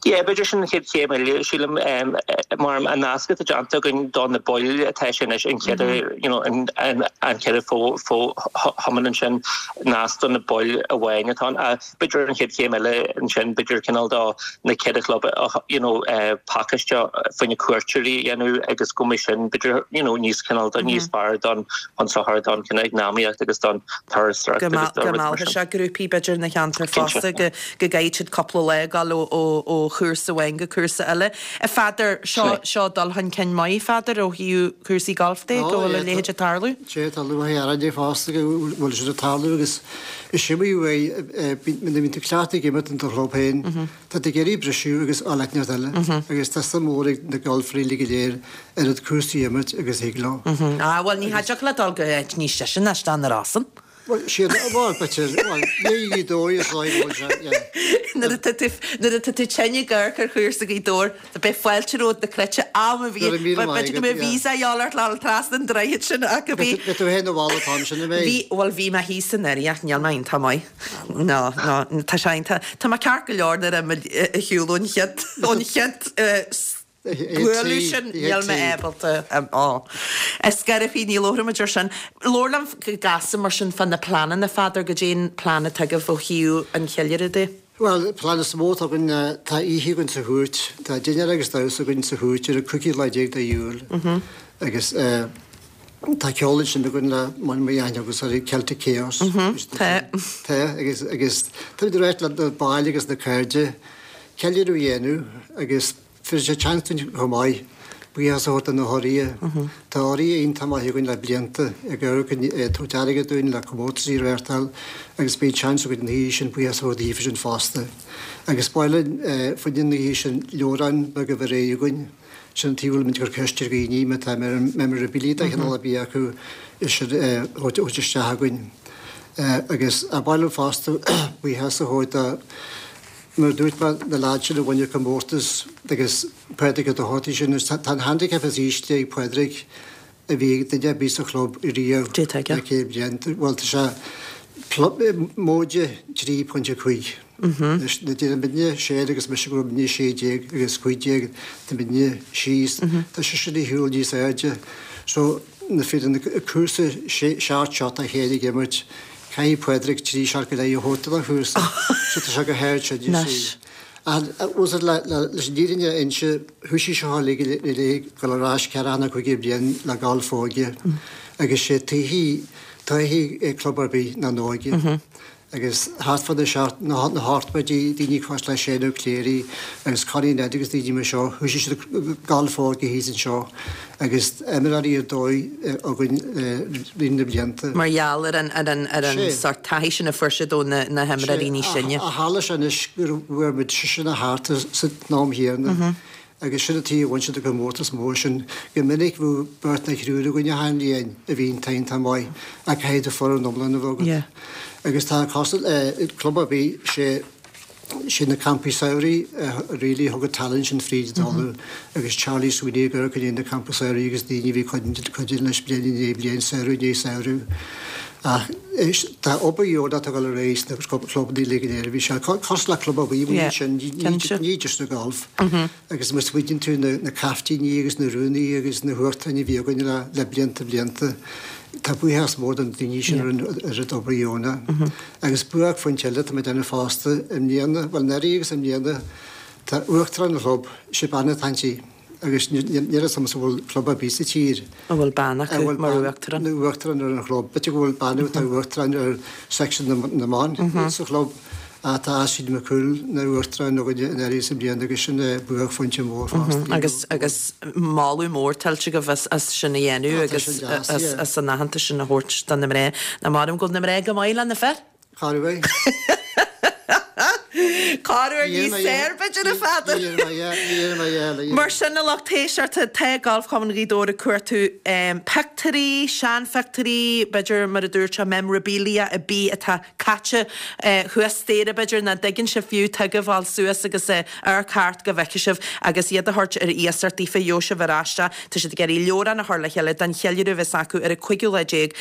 Yeah, b'fhéidir sin an chéad chéim eile, sílim, mar an nasc atá déanta againn do na baill atá sé anois an chéad, you know, an chéad fo-chumann ansin, nasc do na baill amháin atá ann. B'fhéidir an chéad chéim eile ansin, b'fhéidir cineál do na ceithre chlub, you know, pacáiste fá choinne cuairteoirí a dhéanamh agus go mbeidh sin, b'fhéidir, you know, níos cineál de níos fearr don chun sochair don cineál eacnamaíocht agus don turasóireacht agus do rudaí mar sin. Go meallfadh sé grúpaí b'fhéidir na cheantar fosta go go gcaithfidh siad cúpla lá ag dul ó chúrsa amháin go cúrsa eile. A Pheadair, seo, seo dul chun cinn maith, a Pheadair, ó thaobh cúrsaí gailf de, go bhfuil a leithéid ag tarlú. Sea, tá lúcháir orainne fosta go bhfuil siad ag tarlú agus is iomaí uair, nuair a bhíonn tú cleachtaithe ag imirt in do chlub féin, tá tú ag iarraidh briseadh agus dul áit inteacht eile agus tá suim mhór ag na galfairí uilig go léir oiread cúrsaí a imirt agus a thig leo. Ah, bhuel, ní dtiocfadh leat dul go áit níos deise ná isteach na Rosann. Bhuel, siad, bhuel, b'fhéidir, bhuel, ní Ghaoth Dobhair is dóigh go bhfuil sé, yeah. Nuair atá tú, nuair atá tú tinn ag amharc ar chúrsa Ghaoth Dobhair, beidh fáilte romhat na Cruite am a bhí, Go raibh míle maith b'fhéidir go agat, mbeidh yeah. visa a dhíobháil ort le dhul trasna an droichid sin ach go bhí, Beidh tú féin abhaile an t-am sin, an mbeidh? bhí, bhuel, bhí mé thíos anuraidh ach níl mé iontach maith. No, no, tá sé iontach, tá mé ceart go leor nuair a ag shiúl ón chéad, ón chéad, bualadh sin, níl mé ábalta á. Ar scor ar bith, ní labhróimid ar sin. Labhair liom go gasta mar sin fá na pleananna, a Pheadair, goidé an plean atá agaibh ó thaobh an cheiliúradh de? Bhuel, an plean is mó atá againn ná, tá oíche againn sa Chúirt, tá dinnéar agus damhsa againn sa Chúirt ar an 15 lá de Iúil agus tá ceol ansin againn le mar a aithne agus ar Celtic Chaos. Tá. Tá, agus agus táimid ag ráit le na baill agus na cairde ceiliúradh a dhéanamh agus Tabharfaidh sé seans dúinn chomh maith buíochas a thabhairt do na hurraithe. Tá urraithe iontach maith againn le blianta ag amharc ag tabhairt airgead dúinn le comórtaisí a reáchtáil agus beidh seans againn an oíche sin buíochas a thabhairt daofa sin fosta. Agus ba mhaith linn fá choinne an oíche sin leabhrán beag a bheith réidh againn. Sin an tuige a bhfuilimid ag cur ceist ar dhaoine má tá memorabilia de chineál ar bith acu é sin a thabhairt isteach againn. Agus ba mhaith linn fosta buíochas a thabhairt do Mar a dúirt mé, na leaids sin a bhain an comórtas agus Pádraig Ó Dochartaigh sin, tá an handicap is ísle ag Pádraig a bhí ag duine ar bith sa chlub riamh Cé tá aige? le 100 bliain. Bhuel, tá sé móide 3.5. Anois, nuair a deir muidne Shane agus mise go raibh muidne 16 agus 15, tá muidne síos, tá seisean ar shiúl níos airde. So, na fir an cúrsa seacht seot a chéile ag imirt, Caithfidh Pádraig 3 seat go leith a thabhairt don chúrsa so tá sé go hard sin, you see. Ach was it leis an fhírinne a inse, thoisigh seo uilig go léir ag dul ar ais ceathracha nó caoga bliain le galf óige agus sé taithí, taithí club ar bith ná an óige. Agus thart fá na seacht, na hochtóidí, daoine cosúil le Shane Ó Cléirigh agus Connie Ned agus daoine mar seo, thoisigh siad galf óige thíos anseo agus imreoirí ar dóigh againn roimh na blianta. Mar gheall ar an, ar an, ar an sórt taithí sin a fuair siad ó na, na himreoirí níos sine. Ach tharla sé anois go bhfuair muid seisean thart san am chéanna. Agus sin an tuige a bhain siad an comórtas mór sin. Go minic bheadh beirt nó triúr againn achan bhliain a bhí iontach iontach maith ach caithfidh tú foireann iomlán a bheith agat. Agus tá cosúil le club ar bith, sé sé na campaí samhraidh a really thug an talent sin fríd an talamh agus Charlie Sweeney ag amharc i ndiaidh na campaí samhraidh agus daoine a bhí cuidiú leis bliain i ndiaidh bliain, samhradh i ndiaidh samhradh. Ach tá obair dheonach ag dul ar aghaidh sna clubanna uilig go léir. Bhí sé cosúil le club ar bith amuigh ansin, ní just na golf. Agus má smaoiníonn tú na caiftíní agus na rúnaí agus na huachtaráin a bhí againn le blianta blianta, tá buíochas mór do na daoine sin ar an oiread obair dheonach. Agus buaicphointe eile atá mé ag déanamh fosta i mbliana, bhuel anuraidh agus i mbliana, tá uachtarán an chlub, sé bean atá inti. Agus níl a fhios agamsa an bhfuil club ar bith sa tír. a bhfuil bean acu mar uachtarán. Mar uachtarán ar an chlub. B'fhéidir go bhfuil bean atá uachtarán ar section na mban sa chlub ach tá Astrid McCool ina uachtarán againne anuraidh is i mbliana agus sin buaicphointe mór fosta. Agus agus moladh mór tuillte agaibh as as sin a dhéanamh agus as as an aitheantas sin a thabhairt do na mná. Nach maith liom go bhfuil na mná go maith le na fir? Corruair. Corruair níos fearr, b'fhéidir, a Pheadair. Mar sin, a lucht éisteachta, tá Galfchumann Ghaoth Dobhair ag cuartú pictiúirí, seanphictiúirí, b'fhéidir, mar a dúirt sé, memorabilia ar bith atá caite thuas staighre, b'fhéidir, nach dtuigeann sibh fiú tuige a fháil suas agus amharc thart go bhfeicfidh sibh agus iad a thabhairt ar iasacht daofa, gheobhaidh sibh ar ais é. Tá siad ag iarraidh leabhrán a chur le chéile don cheiliúradh a bheas acu ar an 15ú lá de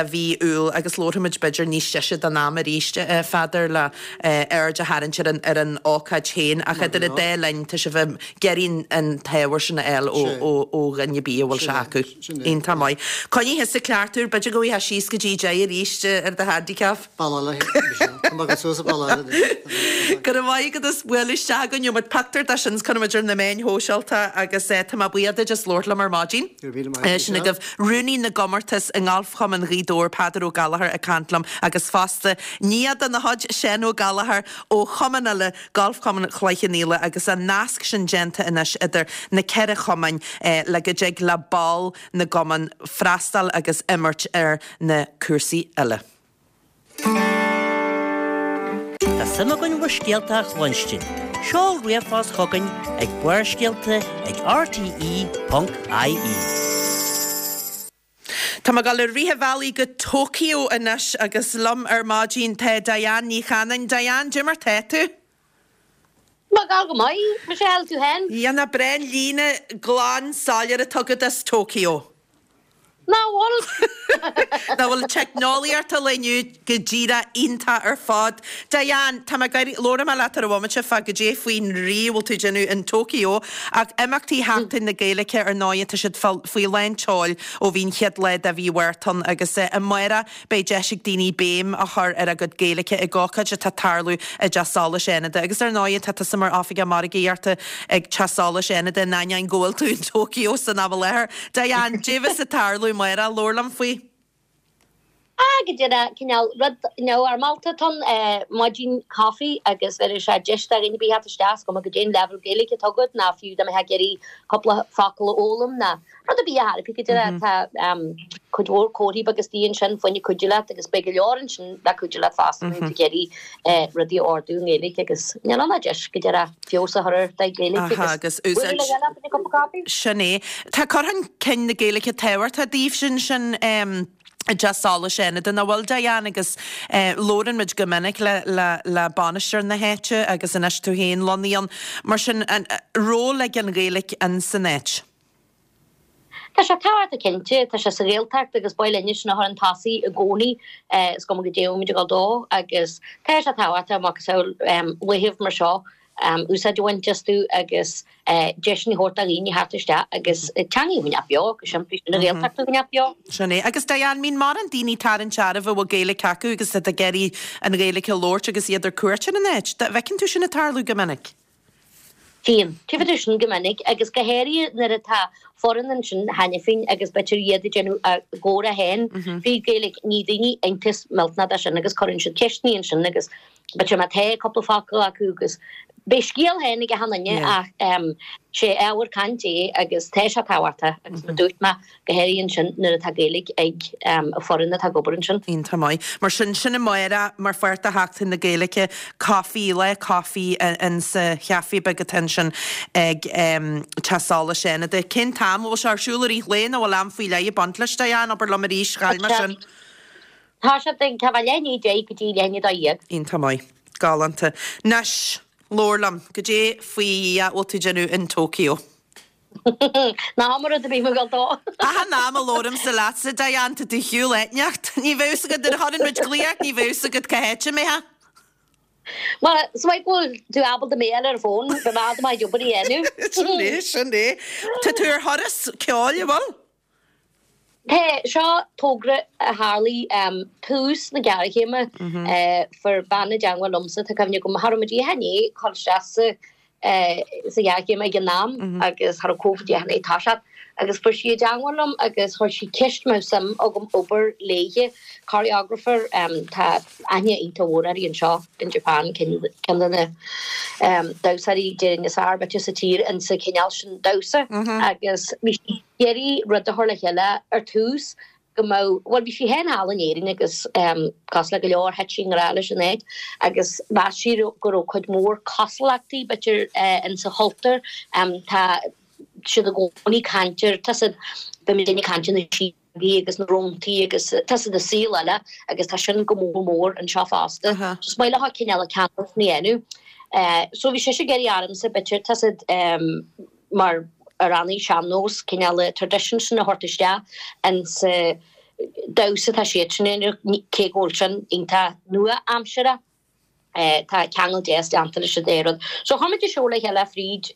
mhí Iúil agus labharfaimid b'fhéidir níos deise den am arís, a Pheadair, le aird a tharraingt. ar an ar an ócáid féin ach idir an dá linn tá sibh ag iarraidh an t-ábhar sin a fháil ó ó ó dhuine ar bith a bhfuil sé acu. Iontach maith. Coinnigh thusa ceart úr, b'fhéidir go bhfaighfeá síos go dtí 10 arís ar do handicap. Bealach eile, Michelle. Tá mé ag dul suas an bealach eile anois. Go raibh maith agat as bualadh isteach againn. Gheobhaidh muid pictiúr de sin 's cuirfidh muid ar na meáin shóisialta agus tá mé buíoch duit as labhairt liom ar maidin. Go raibh míle maith agat, Sin agaibh Rúnaí na gComórtas i nGalfchumann Ghaoth Dobhair, Peadar Ó Gallchóir ag caint liom agus fosta nia de na chuid, Seán Ó Gallchóir ó chumann eile, Galfchumann Chloich Cheann Fhaola agus an nasc sin déanta anois idir na ceithre chumainn le go dtig le ball na gcumann freastal agus imirt ar na cúrsaí uile. Tá suim againn bhur scéalta a chluinstin. Seol ríomhphost chugainn ag barrscéalta ag rte.ie. Tá mé ag dul i rith an bhealaigh go Tokyo anois agus liom ar maidin tá Diane Ní Chanainn. Diane, cad é mar tá tú? Tá mé ag gabháil go maith, Michelle, tú féin? Nach breá an líne glan soiléir atá agat as Tokyo. Nach bhfuil? Nach bhfuil teicneolaíocht an lae inniu go díreach iontach ar fad. Diane, tá mé ag iarraidh, labhróidh mé leat ar an bhomaite fá goidé faoin rí a bhfuil tú ag déanamh in Tokyo, ach imeachtaí Sheachtain na Gaeilge ar ndóigh tá siad faoi lán tseoil ó bhí an chéad lá de mhí Mhárta ann agus amárach Beidh deis ag daoine béim a chur ar a gcuid Gaeilge ag ócáid atá ag tarlú i dTeach Solais Fhánada. Agus ar ndóigh, tá tusa mar Oifigeach Margaíochta ag Teach Solais Fhánada in ainneoin go bhfuil tú in Tokyo san am i láthair. Diane, goidé bheas ag tarlú amárach, labhair liom faoi. Ah, go díreach, cineál rud neamhfhoirmeálta atá ann, maidin coffee agus bheir sé deis do dhaoine ar bith theacht isteach, is cuma goidé an leibhéal Gaeilge atá agat ná fiú dá mbeifeá ag iarraidh cúpla focal a fhoghlaim ná Rud ar bith a thairfidh go díreach. Tá cuid mhór comharthaí beaga istigh ansin fá choinne cuidiú leat agus beidh go leor ansin le cuidiú leat fosta má tá tú ag iarraidh rudaí a ordú i nGaeilge agus níl ann ach deis go díreach feabhas a chur ar do Ghaeilge agus bualadh le chéile fá choinne cup of coffee. Sin é. Tá cur chun cinn na Gaeilge tábhachtach daoibhse ansin i dTeach Solais Fhánada, nach bhfuil, Diane, agus labhrann muid go minic le le le bainisteoir na háite agus anois tú féin lonnaithe ann. Mar sin, an ról ag an Ghaeilge in san áit? Tá sé tábhachtach cinnte, tá sé sa Ghaeltacht agus ba mhaith linne sin a chur chun tosaigh i gcónaí, is cuma goidé a bhfuil muid ag dul dó agus tá sé tábhachtach macasamhail laethibh mar seo úsáid a bhaint astu agus deiseanna a thabhairt do dhaoine theacht isteach agus teanga a choinneáil beo, go simplí, sin an Ghaeltacht a choinneáil beo. Sin é. Agus Diane, mbíonn mórán daoine tarraingt oraibh a bhfuil Gaeilge acu agus iad ag iarraidh an Ghaeilge a labhairt agus iad ar cuairt ar an áit. Bhfeiceann tú sin ag tarlú go minic? Bíonn. Tchífidh tú sin go minic agus go háirithe nuair atá foireann ansin cheana féin agus b'fhéidir iad ag déanamh a gcomhrá féin frí Ghaeilge. Ní daoine iontas millteanach de sin agus cuireann siad ceisteanna ansin agus b'fhéidir má tá cúpla focal acu agus beidh scéal féin ag achan duine ach sé ábhar cainte é agus tá sé tábhachtach agus mar dúirt mé go háirithe ansin nuair atá Gaeilge ag an foireann atá ag obair ansin. Iontach maith. Mar sin, sin amárach mar pháirt de Sheachtain na Gaeilge, coffee, lá coffee in sa chaife beag atá ansin ag Teach Solais Fhánada. Cén t-am? Bhfuil sé ar siúl i rith an lae nó bhfuil am faoi leith ag baint leis, Diane? Abair liom arís, chaill mé sin. Tá sé ag tá leath i ndiaidh 10 go dtí leath i ndiaidh 12. Iontach maith. Galánta. Anois, labhair liom, goidé faoi Dhia a bhfuil tú ag déanamh in Tokyo? Ná habair rud ar bith, mo ghoil dó. Achan am a labhraímse leatsa, Diane, tá tú ar shiúl áit inteacht. Ní bheadh fhios agat, nuair a chuireann muid glaoch ort, ní bheadh fhios agat cá háit a mbeifeá. Bhuel, is maith go bhfuil tú ábalta mé a fháil ar an bhfón, bheadh mé ábalta mo chuid obair a dhéanamh. Sin é, sin é. Tá tú ar thuras ceoil, an bhfuil? Tá, seo togra a tharlaigh tús na géarchéime. Fuair bean i dteangmháil liomsa, tá cuimhne agam, cha raibh muid i ndiaidh dul isteach sa sa ghéarchéim ag an am agus cha raibh Covid i ndiaidh toiseacht agus fuair sí i dteangmháil liom agus chuir sí ceist an mbeadh suim agam obair léithe, choreographer, tá aithne iontach mhór uirthi anseo in Japan, ceann de na damhsóirí déarfainn is fearr b'fhéidir sa tír insa chineál sin damhsa agus bhí sí ag iarraidh rud a chur le chéile ar tús go mbeadh, bhuel bhí sí féin thall in Éirinn agus cosúil le go leor thit sí i ngrá leis an áit agus mheas sí go raibh cuid mhór cosúlachtaí b'fhéidir insa chultúr. Tá siad i gcónaí ag caint ar, tá siad, bíonn muidinne ag caint ar na síogaí agus na róntaí agus tá siad i saol eile agus tá sin go mór mór anseo fosta. So is maith leo cineál an ceangal sin a dhéanamh. So bhí sise ag iarraidh ormsa b'fhéidir, tá siad, mar amhránaí sean-nós, cineál an tradition sin a thabhairt isteach insa damhsa atá siadsan a dhéanamh, cé go bhfuil sin iontach nua-aimseartha. Tá ceangal deas déanta leis an dá rud. So chuir muid an seó le chéile fríd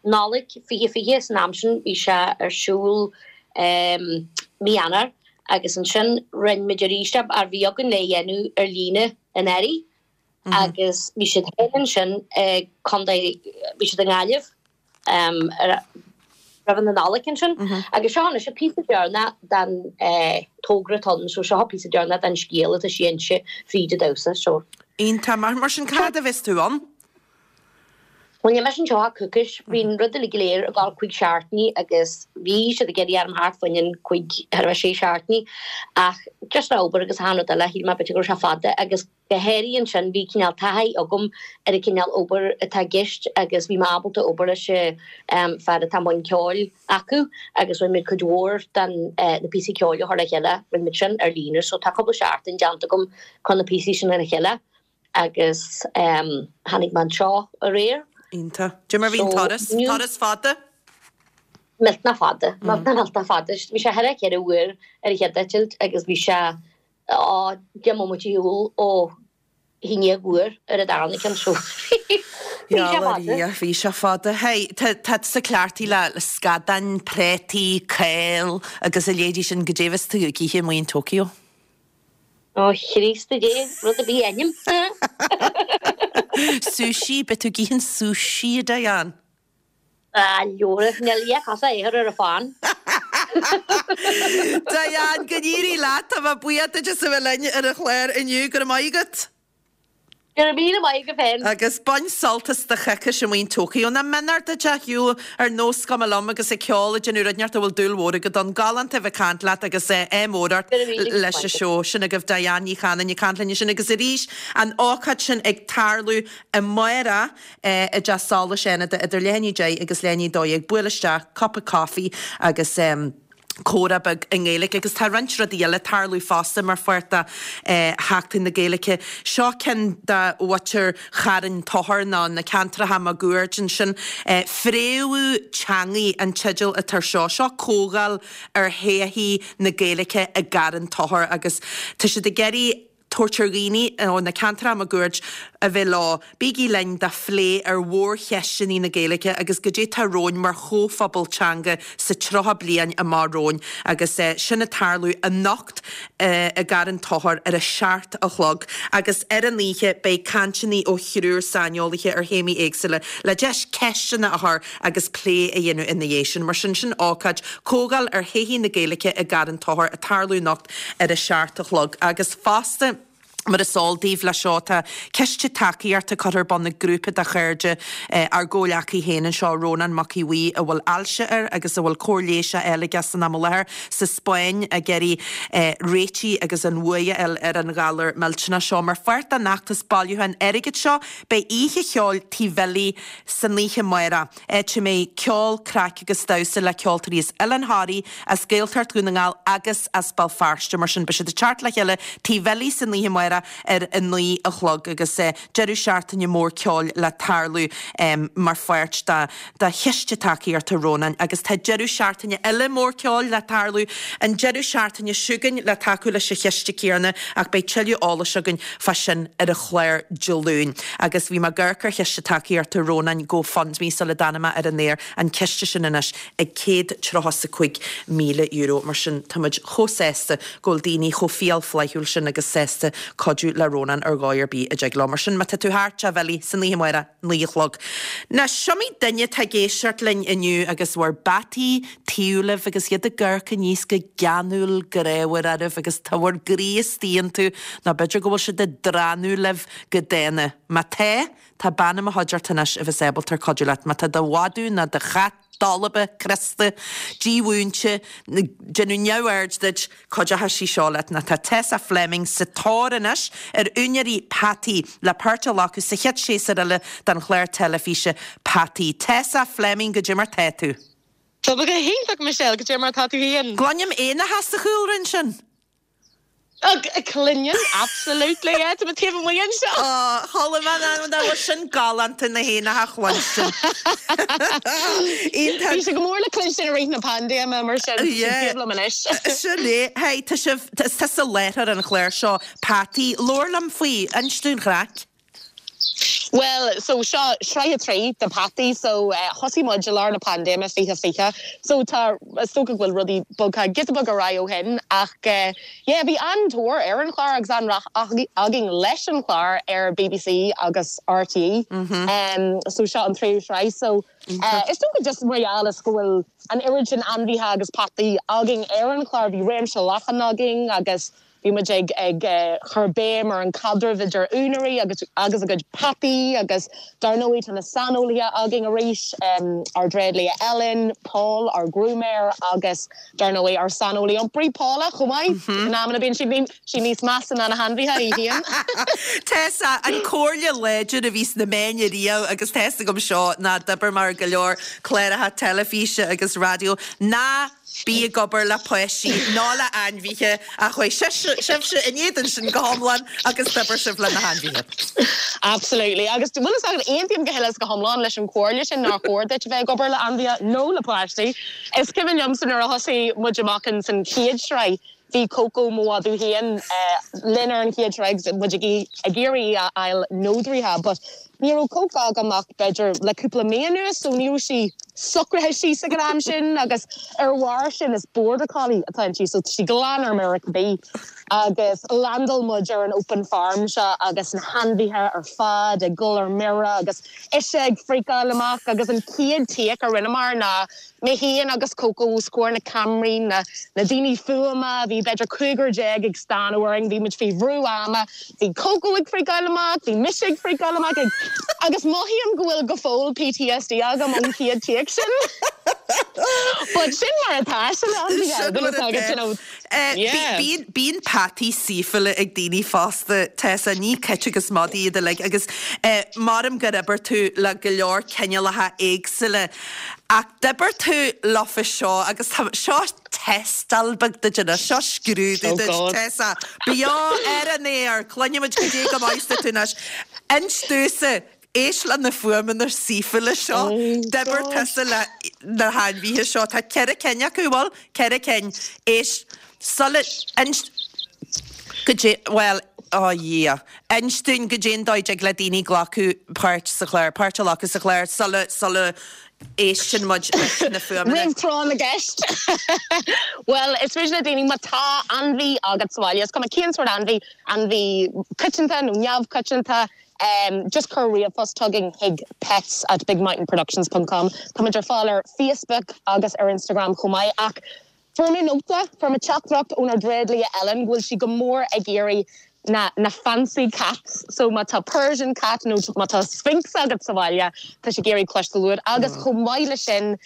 Nollaig 2020, san am sin bhí sé ar siúl mí Eanáir agus ansin rinne muid arís é mar bhí againn le dhéanamh ar líne in earraigh agus bhí siad féin ansin i gcontae, bhí siad i nGaillimh. roimh na Nollag ansin. Agus seo anois an píosa deireanach den togra atá ann, so seo an píosa deireanach den scéal atá sí a inse fríd an damhsa, so. Iontach. Mar sin, cá fhad a bheas tú ann? Bhuel, níl mise anseo ach coicís. Bhí an rud uilig go léir ag dul cúig seachtainí agus bhí siad ag iarraidh orm theacht fá choinne cúig, thar a bheith sé seachtainí ach just le obair agus achan rud eile, shíl mé b'fhéidir go raibh sé fada agus Go háirithe ansin, bhí cineál taithí agam ar an cineál obair atá i gceist agus bhí mé ábalta obair leis an fear atá i mbun ceoil acu agus rinne muid cuid mhór den na píosaí ceoil a chur le chéile, rinne muid sin ar líne so tá cúpla seachtain déanta agam chun na píosaí sin le chéile agus tháinig mé anseo aréir. Iontach. Cad é mar bhí an turas? Turas fada? Millteanach fada. Millteanach millteanach fada. Bhí sé thar 4 uair ar an chéad eitilt agus bhí sé Á, 10 mbomaite ar shiúl ó i ndiaidh uair ar an darna ceann so bhí sé fada. Bhí sé fada. Hey, tá tusa cleachtaithe le scadáin, préataí, cál agus a leithéidí sin, goidé a bheas tú ag ithe amuigh in Tokyo? Ó Chríost a Dé, rud ar bith a ainm. Sushi, beidh tú ag ithe an sushi, a Diane. Ah, leora, níl a cosa a chur ar a fán. Diane, go n-éirí leat, tá mé buíoch duit as a bheith linn ar an chlár inniu, go raibh maith agat. Go raibh míle maith agat féin. Agus bain sult as do choicís amuigh in Tokyo. Nach mionúr duit a shiúl ar nós cuma liom agus ag ceol ag déanamh rud inteacht a bhfuil dúil mhór agat ann. Galánta a bheith ag caint leat agus ádh mór ort leis an seó. Sin agaibh Diane Ní Chanainn ag caint linn ansin agus arís an ócáid sin ag tarlú amárach. i dTeach Solais Fhánada idir leath i ndiaidh 10 agus leath i ndiaidh 12, buail isteach, cupa coffee agus comhrá beag i nGaeilge. Agus tá roinnt rudaí eile ag tarlú fosta mar pháirt de Sheachtain na Gaeilge. Seo ceann de mhuintir Charn Tóchair nó na ceantracha máguaird ansin. Fréamhú Teangaidh an teideal atá ar seo. Seo comhdháil ar thodhchaí na Gaeilge i gCarn Tóchair agus tá siad ag iarraidh tabhairt ar dhaoine ó na ceantracha máguaird a bheith leo. Bígí linn do phlé ar mhórcheisteanna na Gaeilge agus goidé tá romhainn mar chomhphobal teanga sa 30 bliain amach romhainn agus sin ag tarlú anocht i gCarn Tóchair ar a 7 a chlog agus ar an oíche beidh cainteanna ó thriúr saineolaithe ar théamaí éagsúla le deis ceisteanna a chur agus plé a dhéanamh ina dhiaidh sin. Mar sin, sin ócáid, Comhdháil ar Thodhchaí na Gaeilge i gCarn Tóchair ag tarlú anocht ar a 7 a chlog. Agus fosta, mar is eol daoibh, leis seo tá ciste tacaíochta curtha ar bun ag grúpa de chairde ár gcomhghleacaí féin anseo, Rónán Mac Aodha Bhuí, a bhfuil ailse air agus a bhfuil cóir leighis á fháil aige san am i láthair sa Spáinn ag iarraidh réitigh agus an bhuaidh a fháil ar an ghalar millteanach seo. Mar pháirt den fheachtas bailiúcháin airgid seo, beidh oíche cheoil Tigh Bhilly san oíche amárach. áit a mbeidh ceol, craic agus damhsa le ceoltóirí as Oileán Thoraí, as Gaeltacht Dhún na nGall agus as Béal Feirste. Mar sin, beidh siad ag teacht le chéile Tigh Bhilly san oíche amárach ar a 9 a chlog agus deireadh seachtaine mór ceoil le tarlú mar pháirt de chiste tacaíochta Rónáin. Agus tá deireadh seachtaine eile mór ceoil le tarlú an deireadh seachtaine seo chugainn le tacú leis an chiste céanna ach beidh tuilleadh eolais againn fá sin ar an chlár Dé Luain. Agus bhí mé ag amharc ar chiste tacaíochta Rónáin GoFundMe sula dtáinig mé ar an aer, an ciste sin anois ag €135,000. Mar sin, tá muid chomh sásta go bhfuil daoine chomh fial flaithiúil sin agus sásta cuidiú le Rónán ar dhóigh ar bith a dtig leo. Mar sin, má tá tú thart, Teach Bhilly, san oíche amárach, 9 a chlog. Now, is iomaí duine atá ag éisteacht linn inniu agus bhur bpeataí taobh libh agus iad ag amharc aníos go geanúil grámhar oraibh agus tá bhur gcroí istigh iontu, nó b'fhéidir go bhfuil siad ag drannadh libh go dána. Má tá, tá bean i mo chuideachta anois a bheas ábalta cuidiú leat. Má tá do mhadadh nó do chat dolba, crosta, dímhúinte, ag déanamh neamhaird duit, Cuideoidh sí seo leat nó tá Tessa Fleming sa tóir anois ar úinéirí peataí le páirt a ghlacadh sa chéad séasúr eile den chlár teilifíse Peataí. Tessa Fleming, goidé mar tá tú? Tá mé go hiontach Michelle, goidé mar tá tú féin? Cluinim éanacha sa chúlra ansin. Cluineann, absolutely, yeah, tá mé taobh amuigh anseo. Ó, chuala mé an bhfuil sin galánta na héanacha a chluinstin. Iontach. Bhí sé go mór le cluinstin i rith na paindéime mar sin, yeah. taobh liom anois. Sin é. Hey, tá sibh, tá tusa láithreoir an chláir seo, Peataí. Labhair liom faoi, inis dúinn an chraic. Bhuel, so seo sraith 3 de Peataí, so thosaigh muid i lár na paindéime 2020, so tá, is dócha go bhfuil rudaí bogtha giota beag ar aghaidh ó shin ach yeah, bhí an-tóir ar an chlár agus an-rath againn leis an chlár ar bbc agus RTÉ, so seo an tríú sraith, so is dócha just mar gheall is go bhfuil an oiread sin ainmhithe agus peataí againn ar an chlár, bhí réimse leathan againn agus Bhí muid ag ag cur béim ar an caidreamh idir úinéirí agus agus a gcuid peataí agus dar ndóigh tá na saineolaithe againn arís, ár dtréidlia Ellen, Paul, ár grúmaeir agus dar ndóigh ár saineolaí iompraí Paula chomh maith. In amanna bíonn sí sí níos measa ná na hainmhithe í féin. Tessa, an comhairle láidir a bhí sna meáin ariamh agus tá fhios agam seo ná d'oibir mé ar go leor cláracha teilifíse agus raidió, ná Bí ag obair le páistí ná le ainmhithe ach chuaigh sibhse in éadan sin go hiomlán agus d'oibir sibh le na hainmhithe. Absolutely. Agus bhfuil fhios agat, aontaím go huile is go hiomlán leis an chomhairle sin nár chóir duit a bheith ag obair le ainmhithe nó le páistí. Is cuimhin liomsa nuair a thosaigh muid amach in san chéad sraith, bhí Coco, mo mhadadh féin, linn ar an chéad sraith agus muid ag iarraidh í a fháil nódraithe but Ní raibh Coco agam ach b'fhéidir le cúpla mí anuas so ní raibh sí socraithe síos ag an am sin agus ar bharr sin is Border Collie atá inti so tá sí glan ar mire cibé. Agus landáil muid ar an open farm seo agus na hainmhithe ar fad ag dul ar mire agus ise ag freakáil amach agus an chéad take a rinneamar ná Mé féin agus Coco os comhair na ceamaraí, na daoine fuaime, bhí b'fhéidir cúigear déag ag stánadh orainn, bhí muid faoi bhrú ama, bhí Coco ag freakáil amach, bhí mise ag freakáil amach, ag, agus mothaím go bhfuil go fóill PTSD agam ón chéad take sin. But sin mar atá sé le ainmhithe, Sin mar atá. you know. Yeah. Bíonn, bíonn peataí saoithiúla ag daoine fosta, Tessa, ní cait agus madaí iad uilig agus maram gur oibir tú le go leor cineálacha éagsúla. Ach d'oibir tú leofa seo agus tá, seo tástáil beag duit anois, seo scrúdú duit, Tessa. Beo ar an aer, cluinfimid goidé go maith is tú anois. Inis domhsa, éist le na fuaimeanna saoithiúla seo, d'oibir tusa le na hainmhithe seo, tá ceithre cinn acu, bhfuil? Ceithre cinn. Éist, sula, inis, goidé, bhuel, ó Dhia, inis dúinn goidé an dóigh a dtig le daoine glacadh páirt sa chlár, páirt a ghlacadh sa chlár sula, sula éisteann muid leis na fuaimeanna. Roimh tráth na gceist. Bhuel, is féidir le daoine, má tá ainmhí agat sa bhaile, is cuma cén sórt ainmhí, ainmhí coitianta nó neamhchoitianta, just cuir ríomhphost chugainn chuig pets at bigmountainproductions ponc com. Tá muid ar fáil ar Facebook agus ar Instagram chomh maith ach Fuair mé nóta, fuair mé teachtaireacht ónár dtréidlia Ellen go bhfuil sí go mór ag iarraidh na na fancy cats so má tá Persian cat nó má tá Sphynx agat sa bhaile tá sí ag iarraidh cloisteáil uait agus chomh maith leis sin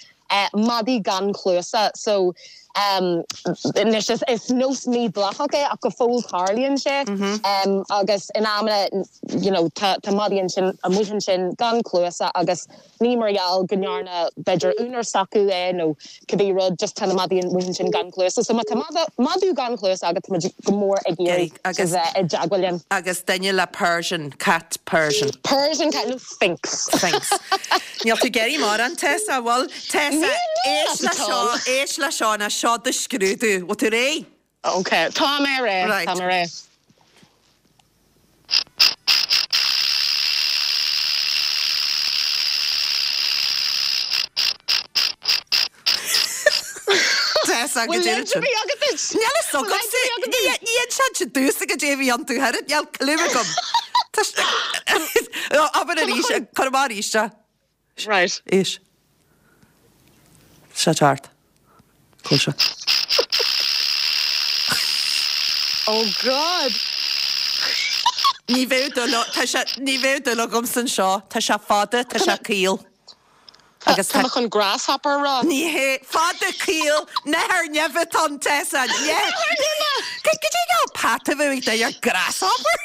madaí gan cluasa so anois is is nós mídhleathach é ach go fóill tarlaíonn sé agus in amanna you know tá tá madaí ansin amuigh ansin gan cluasa agus Ní mar gheall go ndearna, b'fhéidir, úinéir s'acu é nó cibé rud, just tá na madaí amuigh ansin gan cluasa. So má tá madadh gan chluasa agat, tá muid go mór ag iarraidh a bheith i dteagmháil linn. Agus duine le Persian, cat Persian. Persian cat nó Sphynx. Sphynx. Níl tú ag iarraidh mórán, Tessa, bhfuil? Tessa, éist le seo, éist le seo, ná seo do scrúdú. Bhfuil tú réidh? Ok, tá mé réidh, tá mé réidh. Tessa, go Bhfuil dtéann leid ar bith agat duit? Níl a fhios agamsa. Ní inseann siad domhsa goidé a bhí iontu thoir, níl clue agam. Tá Abair arís, cuir amach arís é. Right. Éist. Seo thart. Cúl seo. Oh God! Ní bheadh dúil, tá sé, ní bheadh dúil agamsa anseo. Tá sé fada, tá sé caol. Agus tá. Tá mé chun grasshopper a rá. Ní hé, fada caol, nathair neimhe atá ann, Tessa. Nathair neimhe! Goidé an peata a bheadh ag duine ar grasshopper?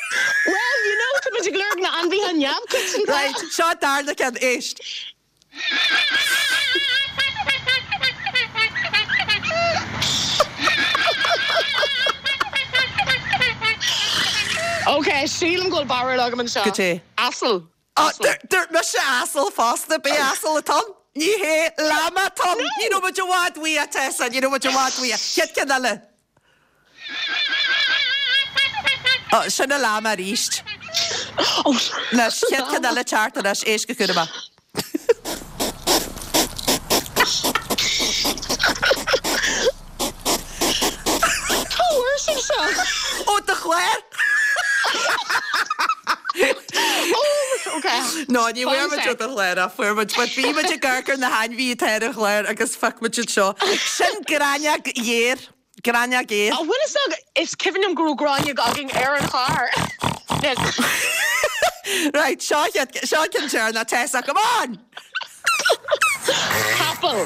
Well, you know, tá muid ag lorg na ainmhithe neamhchoitianta. Right, seo an darna ceann, éist. Ok, sílim go bhfuil barúil agam anseo. Goidé? Asal. Á, dúirt mise asal fosta, b'é asal atá ann. Ní hé, llama atá ann. Ní raibh muid i bhfad uaidh, a Tessa, ní raibh muid i bhfad uaidh. Chéad ceann eile. Ó, sin an llama arís. Anois, chéad ceann eile teacht anois, éist go cúramach. Cá bhfuair sibh seo? Ó do chlár! Ó, ok. No, ní bhfuair muid ó do chlár ach fuair muid, but bhí muid ag amharc ar na hainmhithe atá ar an chlár agus phioc muid iad seo. Sin gráinneog ghéar. Gráinneog ghéar. An bhfuil fhios agat, is cuimhin liom go raibh gráinneog againn ar an chlár. Right, seo seo ceann deireanach, Tessa, come on! Capall.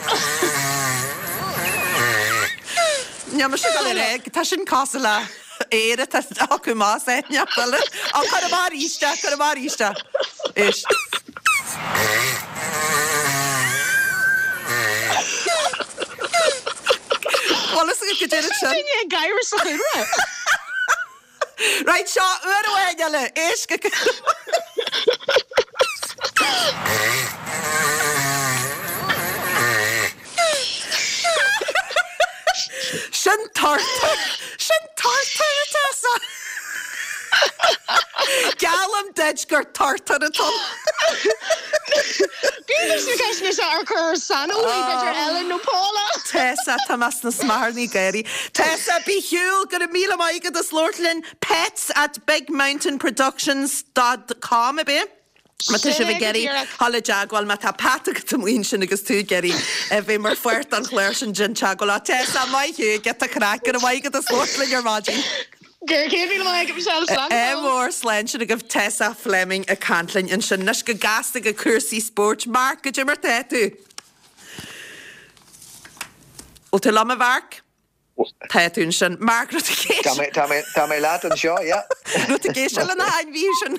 Níl mise ag dul ar aghaidh, tá sin cosúil le aer atá acu más é, neach eile. Á, cuir amach arís é, cuir amach arís é. Éist. Bhfuil fhios agat goidé sin? Duine ag gáire sa chúlra. Right, seo uair amháin eile, éist go Sin turtar! Sin turtar, a Tessa! Geallaim duit gur turtar atá ann. B'fhéidir sna ceisteanna seo ar chur saineolaí, b'fhéidir Ellen nó Paula. Tessa, tá mé sna smeacharnaí gáirí. Tessa, bí shiúl, go raibh míle maith agat as labhairt linn. Pets at bigmountainproductions dot com, ab é? Má tá sibh ag iarraidh dhul i dteagmháil, má tá peata agat amuigh ansin agus tú ag iarraidh a bheith mar pháirt den chlár sin, déan teagmháil. Á, Tessa, maith thú, giota craic, go raibh maith agat as labhairt linn ar maidin. Go raibh míle maith agat, Michelle, slán go Ádh fóill. mór, slán sin agaibh Tessa Fleming ag caint linn ansin. Anois go gasta go cúrsaí spóirt. Mark, goidé mar tá tú? Bhfuil tú liom, a Mhark? Tá tú ansin. Mark, raibh tú ag éisteacht? Tá mé, tá mé, tá mé leat anseo, yeah. Raibh tú ag éisteacht le na hainmhithe sin?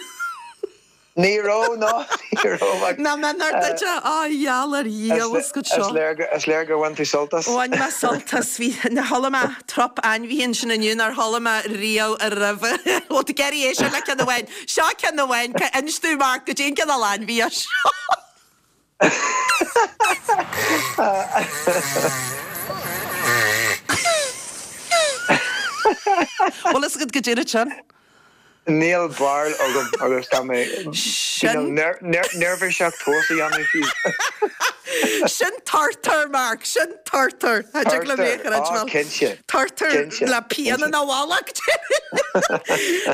Ní raibh, no, ní raibh. Ach, Nach méanar duit é? Á, gheall ar dhiabhal is go seo. Is léir, is léir gur bhain tú sult as. Bhain mé sult as. Bhí, chuala mé trup ainmhithe ansin inniu nár chuala mé riamh roimhe. Bhfuil tú ag iarraidh éisteacht le ceann amháin? Seo ceann amháin. Inis domh, Mark, goidé an cineál ainmhí é seo. Bhfuil fhios agat goidé sin? Níl barúil agam agus tá mé Sin. neirbhíseach tomhas a dhéanamh fiú. Sin turtar, Mark, sin turtar. Cha dtig liom é a Turtar, chreidbheáil. á cinnte, Turtar cinnte, le pian cinnte. ina mhullach.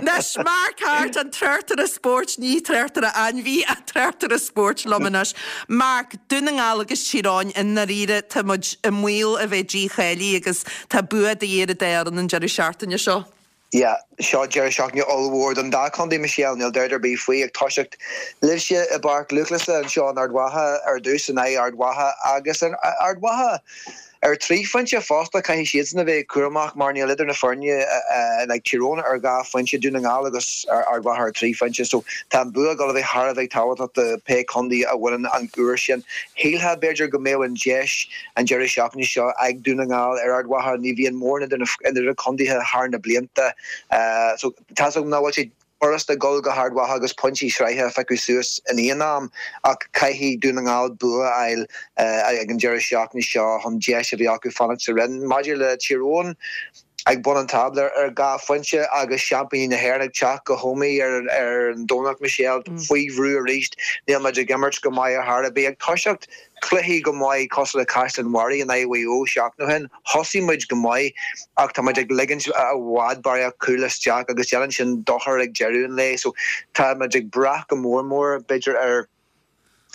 Anois, Mark Harte, an tráchtaire spóirt, ní tráchtaire ainmhí, ach tráchtaire spóirt liom anois. Mark, Dún na nGall agus Tír Eoghain, i ndáiríre, tá muid i mbaol a bheith dícháilithe agus tá bua de dhíth ar an dá fhoireann an deireadh seachtaine seo. Yeah, seo deireadh seachtaine ollmhór don dá chontae, Michelle, níl dabht ar bith faoi. Ag toiseacht libhse i bPáirc Lúthchleasa anseo in Ard Mhacha ar dtús in aghaidh Ard Mhacha agus Ard Mhacha Ar thrí phointe fosta, caithfidh siadsan a bheith cúramach mar níl idir na foirne like Tír Eoghain ar dhá phointe, Dún na nGall agus Ard Mhacha ar thrí phointe so tá an bua ag dul a bheith thar a bheith tábhachtach do pé contae a bhaineann an uair sin. Shílfeá b'fhéidir go mbeadh an deis an deireadh seachtaine seo ag Dún na nGall ar Ard Mhacha, ní bhíonn mórán idir na contaetha thar na blianta so tá's agam nach bhfuil sé furasta dul go hArd Mhacha agus pointí sraithe a phiocadh suas in aon am ach caithfidh Dún na nGall bua a fháil ag an deireadh seachtaine seo chun deis a bheith acu fanacht sa roinn. Maidir le Tír Eoghain, ag bun an tábla ar dhá phointe agus seaimpíní na hÉireann ag teacht go hÓmaigh ar an Domhnach, Michelle, faoi bhrú arís. Níl muid ag imirt go maith ar chor ar bith. Ag toiseacht cluichí go maith cosúil le Caisleán Bharraigh in aghaidh Mhaigh Eo seachtain ó shin. Thosaigh muid go maith ach tá muid ag ligint i bhfad barraíocht cúl isteach agus déanann sin dochar ag deireadh an lae. So tá muid ag brath go mór mór b'fhéidir ar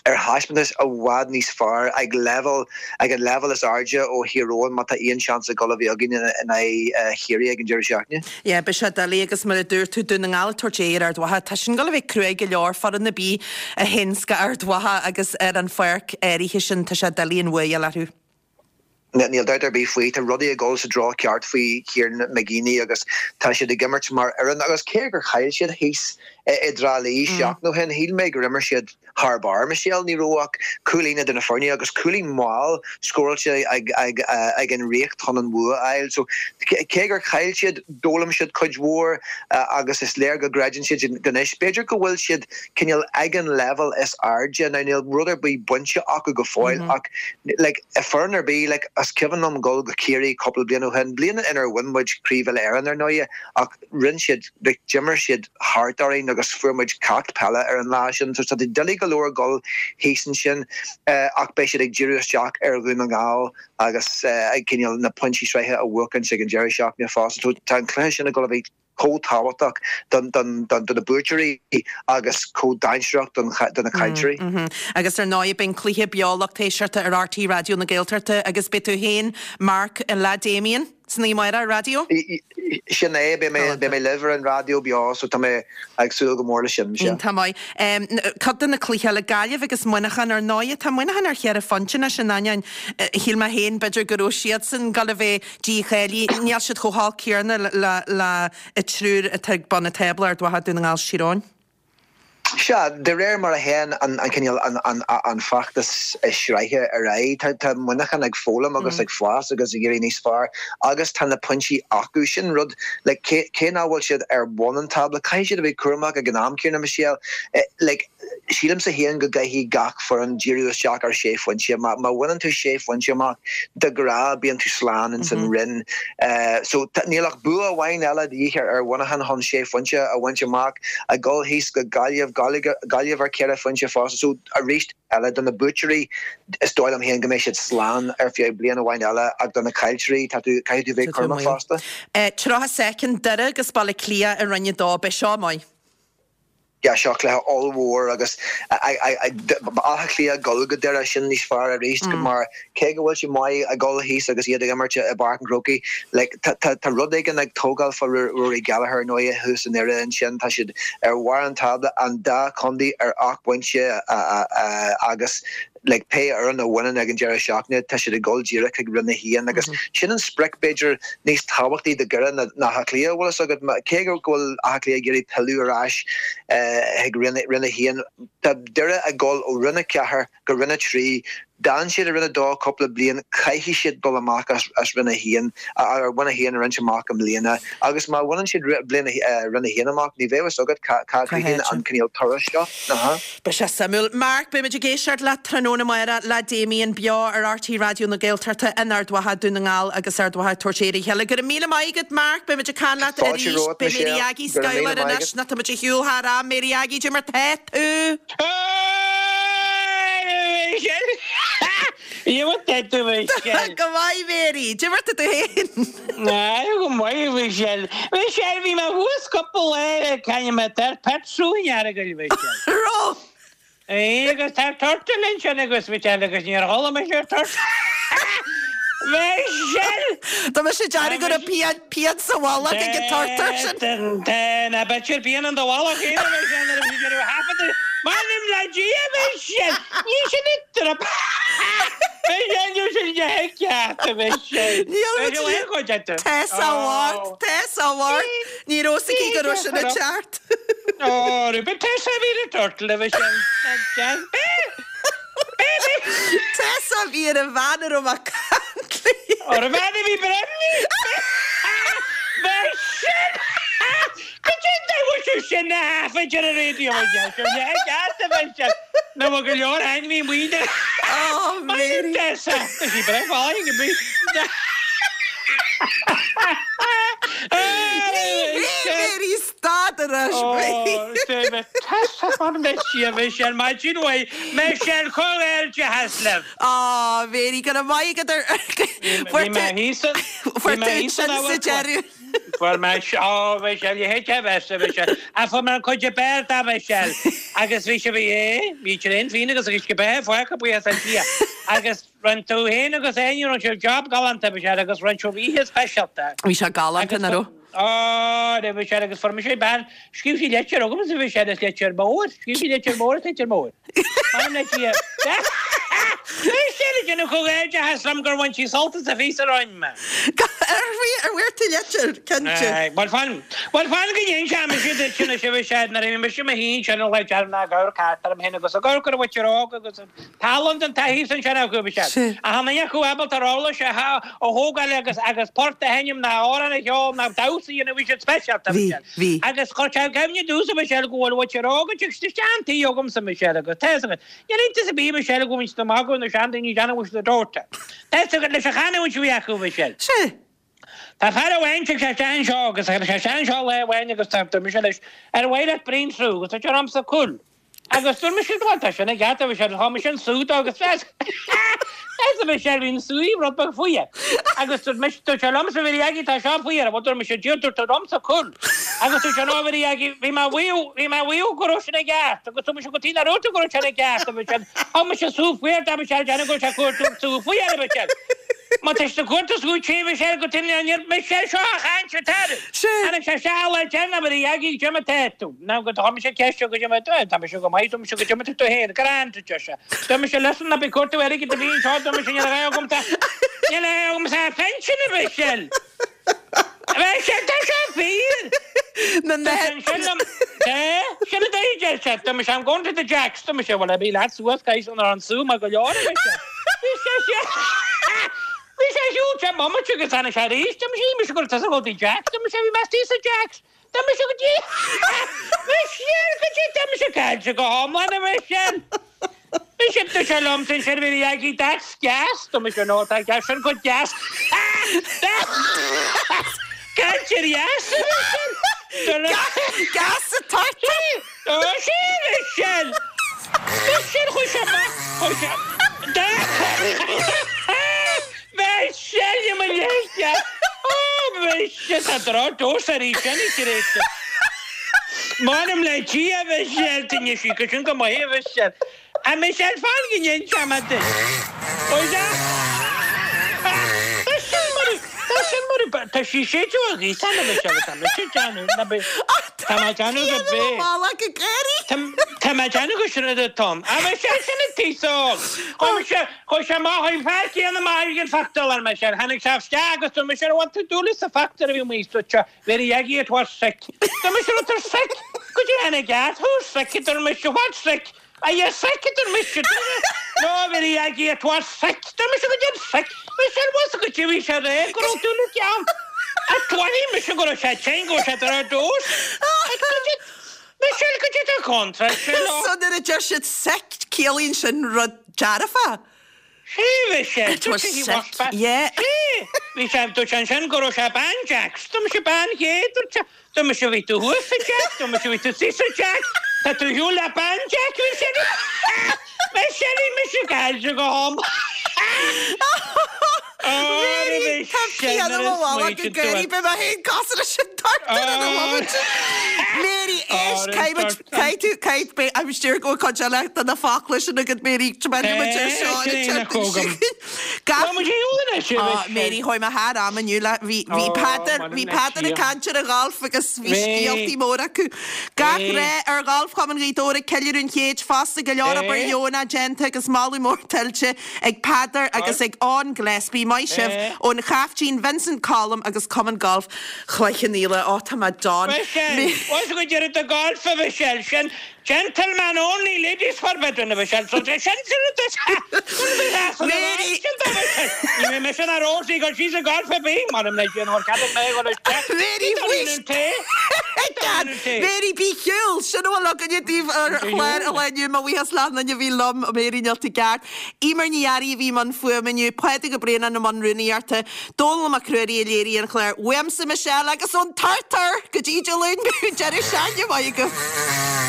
ar thaispeántas i bhfad níos fearr ag leibhéal ag an leibhéal is airde ó Thír Eoghain má tá aon seans ag dul a bheith againn in aghaidh Chiarraí ag an deireadh seachtaine. Yeah, beidh sé doiligh agus mar a dúirt tú, Dún na nGall ag tabhairt aghaidh ar Ard Mhacha, tá sin ag dul a bheith cruaidh go leor, foireann ar bith a théanns go Ard Mhacha agus ar an pháirc áirithe sin tá sé doiligh an bhua a fháil orthu. Níl dabht ar bith faoi, tá rudaí ag dul sa dtreo ceart faoi Kieran McGeeney agus tá siad ag imirt mar fhoireann agus cé gur chaill siad thíos i dTrá Lí seachtain ó shin, shíl mé gur imir siad thar barr, Michelle. Ní raibh ach cúilín idir na foirne agus cúilín mall scóráilte ag an Ríocht chun an bhua a fháil. So cé gur chaill siad, d'fhoghlaim siad cuid mhór agus is léir go gcreideann siad anois. B'fhéidir go bhfuil siad cineál ag an leibhéal is airde. Now níl rud ar bith bainte acu go fóill ach like foireann ar bith like. Is cuimhin liom dul go Ciarraí cúpla bliain ó shin, bliain inar bhain muid Craobh Uile-Éireann ar ndóighe, ach rinne siad, like, d'imir siad thart orainn agus fuair muid ceacht peile ar an lá sin. So tá sé doiligh go leor dul thíos ansin ach beidh siad ag díriú isteach ar Dhún na nGall agus ag cineál na pointí sraithe a bhuachaint ag an deireadh seachtaine fosta. So tá an cluiche sin ag dul a bheith chomh tábhachtach do na buaiteoirí agus chomh dainséarach do na caillteoirí. Agus ar ndóigh beidh an cluiche beo lucht éisteachta ar RTÉ Raidió na Gaeltachta agus beidh tú féin, Mark, le Damien san oíche amárach ar raidió? Sin é, beidh mé beidh mé libh ar an raidió beo so tá mé ag súil go mór leis sin. Iontach maith. Cuid de na cluichí eile, Gaillimh agus Muineachán ar ndóigh, tá Muineachán ar cheithre phointe anois in ainneoin shíl mé féin b'fhéidir go raibh siadsan ag dul a bheith dícháilithe, níl siad chomh holc céanna le an triúr atá ag bun an tábla, Ard Mhacha, Dún na nGall, Tír Eoghain. Sea, de réir mar a théann an cineál, an feachtas sraithe ar aghaidh, tá Muineachán ag foghlaim agus ag fás agus ag éirí níos fearr agus tá na pointí acu. Sin rud, like, cé nach bhfuil siad ar bun an tábla, caithfidh siad a bheith cúramach ag an am céanna, Michelle. Like, sílimse féin go gcaithfidh gach foireann díriú isteach ar sé phointe. Má bhaineann tú sé phointe amach, de ghnáth bíonn tú slán ins an roinn. So níl ach bua amháin eile de dhíth ar Mhuineachán chun sé phointe a bhaint amach, ag dul thíos go Gaillimh, Gaillimh ar cheithre phointe fosta. So arís eile, do na buaiteoirí, is dóigh liom féin go mbeidh siad slán ar feadh bliain amháin eile ach do na caillteoirí, tá tú, caithfidh tú bheith cúramach fosta. 30 soicind, Doire agus Baile Átha Cliath i Roinn 2, beidh seo maith. Yeah, seo cluiche ollmhór agus Áth Cliath ag dul go Doire, sin níos fearr arís mar cé go bhfuil siad maith ag dul thíos agus iad ag imirt i bPáirc an Chrócaigh, like, tá rud éigin ag tógáil fá Rory Gallagher ar ndóighe thuas i nDoire ansin, tá siad ar bharr an tábla, an dá chontae ar 8 bpointe agus like pé fhoireann a bhaineann ag an deireadh seachtaine, tá siad ag dul díreach chuig Roinn 1 agus sin an sprioc b'fhéidir níos tábhachtaí do Dhoire ná Áth Cliath, bhfuil fhios agat. Cé go bhfuil Áth Cliath ag iarraidh pilleadh ar ais chuig Roinn 1, tá Doire ag dul ó Roinn 4 go Roinn 3. D'fhan siad i Roinn 2 cúpla bliain, caithfidh siad dul amach as Roinn 1, Roinn 1 a bhaint amach i mbliana agus má bhaineann siad Roinn 1 amach, ní bheidh fhios agat cá gcríochnaíonn an cineál turas seo. Beidh sé suimiúil. Mark, beidh muid ag éisteacht leat tráthnóna amárach le Damien beo ar RTÉ Raidió na Gaeltachta in Ard Mhacha, Dún na nGall agus Ard Mhacha ag tabhairt aire a chéile. Go raibh míle maith agat Mark, beidh muid ag caint leat Fáilte arís. romhat Beidh Mary Michelle. Aggie Go raibh míle Schuyler maith anois agat. nó tá muid ar shiúl thar am. Mary Aggie, cad é mar tá tú? Michelle! Michelle! Go maith Mary, cad é mar tá tú féin? Go maith Michelle. Michelle, bhí mé thuas cúpla lá ag caint mé tar petrol in Earagail Michelle. Raibh? Aye, agus tá turtle ansin agus Michelle agus níor chuala mise ar turtle. Michelle! Tá mise ag déanamh go raibh pian pian sa mhullach ag an turtar sin. Tá na b'fhéidir pian in do mhullach féin a Michelle nuair a bhí tú ag thaifeadadh. M'anam le Dia Michelle! Ní sin an trip. Michelle, níl sin de cheart a Michelle. Níl muid Tessa Ward, Tessa Ward. Ní raibh fhios aici go raibh sin an ceart. Ó, rubí Tessa a bhí ar an turtle a Michelle. Tessa a bhí ar an bhean a raibh mé ag caint léi. Ar an bhean a bhí breimní. Michelle! Cad é an dóigh bhfuil tú sin a thaifead ar an raidió a Michelle? Ní ceart a Michelle. Nó bhfuil go leor ainmhí maoine. Ó, Mary. Tessa, tá sí breá fáin go bí. Mary, stad anois, Mary. Tessa, mar Michelle, Michelle, maidin mhaith, Michelle, comhghairdeachas libh. Ó, Mary, go raibh maith agat ar... Bhí mé thíos Fuair tú sin sa deireadh. Fuair mé, ó, Michelle, you hate to have a Michelle. Ach fuair mé an cuid ab fhearr de, Michelle. Agus bhí sé, bhí, bhí traein féin agus agus go beith fágtha buíochas le Dia. Agus rinne tú féin agus Áine, rinne sibh job galánta, Michelle, agus rinne sibh oíche speisialta. Bhí sé galánta, nach raibh? Ó, raibh Michelle agus fuair mise bean, scríobh sí litir chugamsa, Michelle, is litir mhór, scríobh sí litir mhór is litir mhór. M'anam le Dia. Michelle ag déanamh comhghairdeachas liom gur bhain sí sult as an phíosa a rinne mé. Ar bhfuair tú litir, cinnte. Bhuel fan, bhuel fan go n-inseoidh mise duit anois a Mhichelle, nuair a bhí mise i mo shuí ansin an lá deireanach ag amharc thart orm féin agus ag amharc ar an mhuintir óg agus an tallann den taithí ansin acu a Mhichelle. Ach an duine acu ábalta uirlis a thógáil agus agus port a sheinm ná amhrán a cheol ná damhsa a dhéanamh bhí siad speisialta a Mhichelle. Bhí. Agus chuir sé i gcuimhne domhsa a Mhichelle go bhfuil muintir óg ag teacht isteach an tí agamsa a Mhichelle agus tá fhios agat. Níl iontas ar bith a Mhichelle go bhfuil muid amach go. acu na seandaoine ag déanamh go bhfuil siad ag dóiteadh. Tá fhios agat leis an chanúint a bhí acu, a Mhichelle. Sea. Tá fear amháin tig sé isteach anseo agus tháinig sé isteach anseo lá amháin agus tá dúirt mise leis ar mhaith leat braon sú agus dúirt sé liomsa cúil agus dúirt mise bhuel tá sin i gceart a Mhichelle thug mise an sú dó agus mheas a Mhichelle bhí an sú rud beag fuar agus dúirt mise dúirt sé liomsa a Mhary Aggie tá seo fuar bhuel dúirt mise Dia dúirt tú liomsa cúil agus dúirt sé no a Mhary Aggie bhí mé bhuíodh bhí mé bhuíodh go raibh sin i gceart agus dúirt mise go tí nach raibh tú go raibh sin i gceart a Mhichelle thug mise sú fuar dá Mhichelle déanamh go raibh sé fuar sú fuar a Mhichelle. Má tá sé cuarta sú tí Michelle go tinn an iarr Michelle seo a chaint ar tar. Tháinig sé isteach lá deireanach Mary Aggie goidé mar tá tú. Ná go tá mise ceist goidé mar tá tá mise go maith tá mise goidé mar tá tú féin grand a deir sé. Tá mise listen ná bí cuartú airgid a bhí anseo tá mise níl a dhath agamsa níl a dhath agamsa pension a Mhichelle. Michelle tá sé fíor. Na Tá sé ansin liom Tá sin a dóigh deir sé tá mise I'm going to the Jacks tá mise bhuel bí leat suas guys an an sú mar go leor a Mhichelle. Bhí sé sé Bhí sé siúl sé bomaite agus tháinig sé arís tá mise mise go tusa go dtí Jacks tá mise bhí mé istigh sa Jacks tá mise go dtí Michelle go dtí tá mise caillte go hiomlán a Mhichelle. Mise tá sé liom sin sin bhí Aggie that's gas tá mise no tá gas sin go deas Caillte dheas a Michelle. Gas sa turtar. Tá sé Michelle. Michelle chuaigh sé amach chuaigh sé Michelle i mo leithscéal Ó Michelle tá droch dós arís anois tar éis M'anam le Dia a Mhichelle d'inis sí go sin go maith a Mhichelle A Michelle fan go n-inseoidh mé duit Ó yeah Tá sin mar tá sin mar tá sí séideadh a ghaoth a Michelle tá mise ag déanamh ná bí Tá mé ag déanamh go bé Tá mé ag déanamh go sin a Tom A Michelle sin an t-aos óg Chuaigh mise chuaigh sé amach chuaigh an fear céanna amach ag an phictiúrlann Michelle tháinig sé isteach agus dúirt mise an bhfuil tú dúil sa phictiúr a bhí amuigh sa Mary Aggie it was sick. Dúirt mise raibh tú sick? Goidé an i gceart? Who's sick? A dúirt mise What's sick? Are you sick? A dúirt mise No Mary Aggie it was sick. Dúirt mise goidé an sick? Michelle was goidé bhí sé rá go raibh dúil i gceann. A tuairim mise go raibh sé tinn go raibh sé ar dtús. Michelle goidé tá contráilte leo. So nuair a deir siad sick ciallaíonn sin rud dearfach. Sea, bhí sé. It was sick, yeah. Sea, bhí sé, dúirt sé ansin go raibh sé bean Jacks. Dúirt mise bean Dhé, dúirt sé. Dúirt mise bhí tú thuas sa Jack, dúirt mise bhí tú thíos sa Jack. Tá tú ar shiúl le bean Jack, bhí sé. Mise, bhí mise caillte go ham. Mary, tá pian i mo mhullach ag gáirí, beidh mé féin cosúil leis an turtar ina bhomaite. Mary, éist, caithfidh muid, caithfidh tú, caithfidh, beidh, I'm sure go bhfuil cuid eile de na focla sin agat, Mary, tiomáinfidh muid ar seo ar an tseachtain seo chugainn. Gach, Á, Mary, chuaigh mé thar am inniu le, bhí, bhí Peadar, bhí Peadar ag caint ar an gholf agus bhí scéaltaí móra acu. Gach rath ar Gholf Chumann Ghaoth Dobhair ag ceiliúradh an chéid fosta, go leor obair dheonach déanta agus moladh mór tuillte ag Peadar agus ag Eoin Gillespie. Maith sibh ón Chaiftín Vincent Colm agus Cumann Gailf Chloich Cheann Fhaola. Ó, tá mé done. Michelle, Bhfuil fhios agat deireadh do golf a Mhichelle, sin gentleman only ladies forbidden a Mhichelle, so sin sin Mary! Ní bheidh mise ná Rosie ag dul síos ag golf ar bith, m'anam le Dia nár cheadaigh mé a dhul isteach. Mary, Mary, bí chiúil! Sin a bhfuil againne daoibh ar chlár an lae inniu. Mo bhuíochas le achan duine a bhí liom, Mary níl tú ceart. Emer Ní Fhearraigh a bhí i mbun fuaime inniu, Pádraig Ó Braonáin i mbun rúnaíochta, Dónall Mac Ruairí a léirigh an clár. Uaimse, Michelle, agus ón Turtar go dtí Dé Luain, deireadh seachtaine maith agaibh.